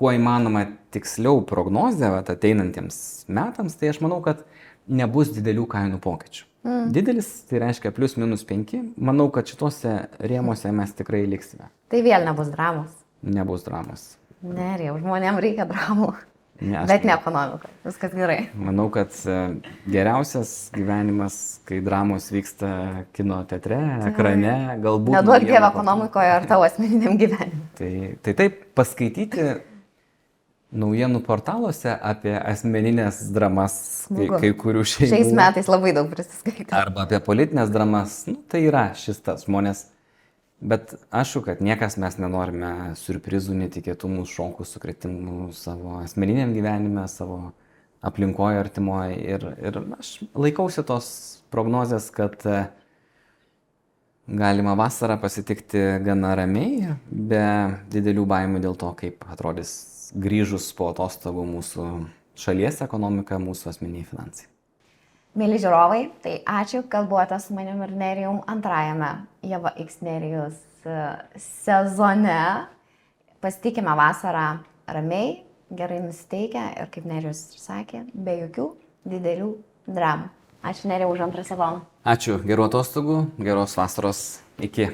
kuo įmanoma tiksliau prognozę ateinantiems metams, tai aš manau, kad nebus didelių kainų pokyčių. Didelis, tai reiškia plius minus 5. Manau, kad šituose rėmuose mes tikrai liksime. Tai vėl nebus dramos. Nebus dramos. Nerijau, žmonėms reikia dramų. Ne, Bet ne ekonomika. Viskas gerai. Manau, kad geriausias gyvenimas, kai dramos vyksta kino teatre, ekrane, galbūt... Neduok Dievą ekonomikoje ar tavo asmeniniam gyvenimui. Tai taip, paskaityti naujienų portaluose apie asmeninės dramas kai kurių šeimų. Šiais metais labai daug prisiskaitė. Arba apie politinės dramas, tai yra šis tas žmonės. Bet aišku, kad niekas mes nenorime surprizų, netikėtumų, šokų, sukretimų savo asmeniniam gyvenime, savo aplinkoje, artimoje. Ir aš laikausi tos prognozės, kad galima vasarą pasitikti gana ramiai, be didelių baimių dėl to, kaip atrodys grįžus po atostogų mūsų šalies ekonomika, mūsų asmeniniai finansai. Mėly žiūrovai, tai ačiū, kad buvote su manim ir Nerijum antrajame Ieva X Nerijus sezone. Pasitikime vasarą ramiai, gerai nusiteikę ir, kaip Nerijus ir sakė, be jokių didelių dramų. Ačiū Nerijau už antrą sezoną. Ačiū, gerų atostogų, geros vasaros, iki.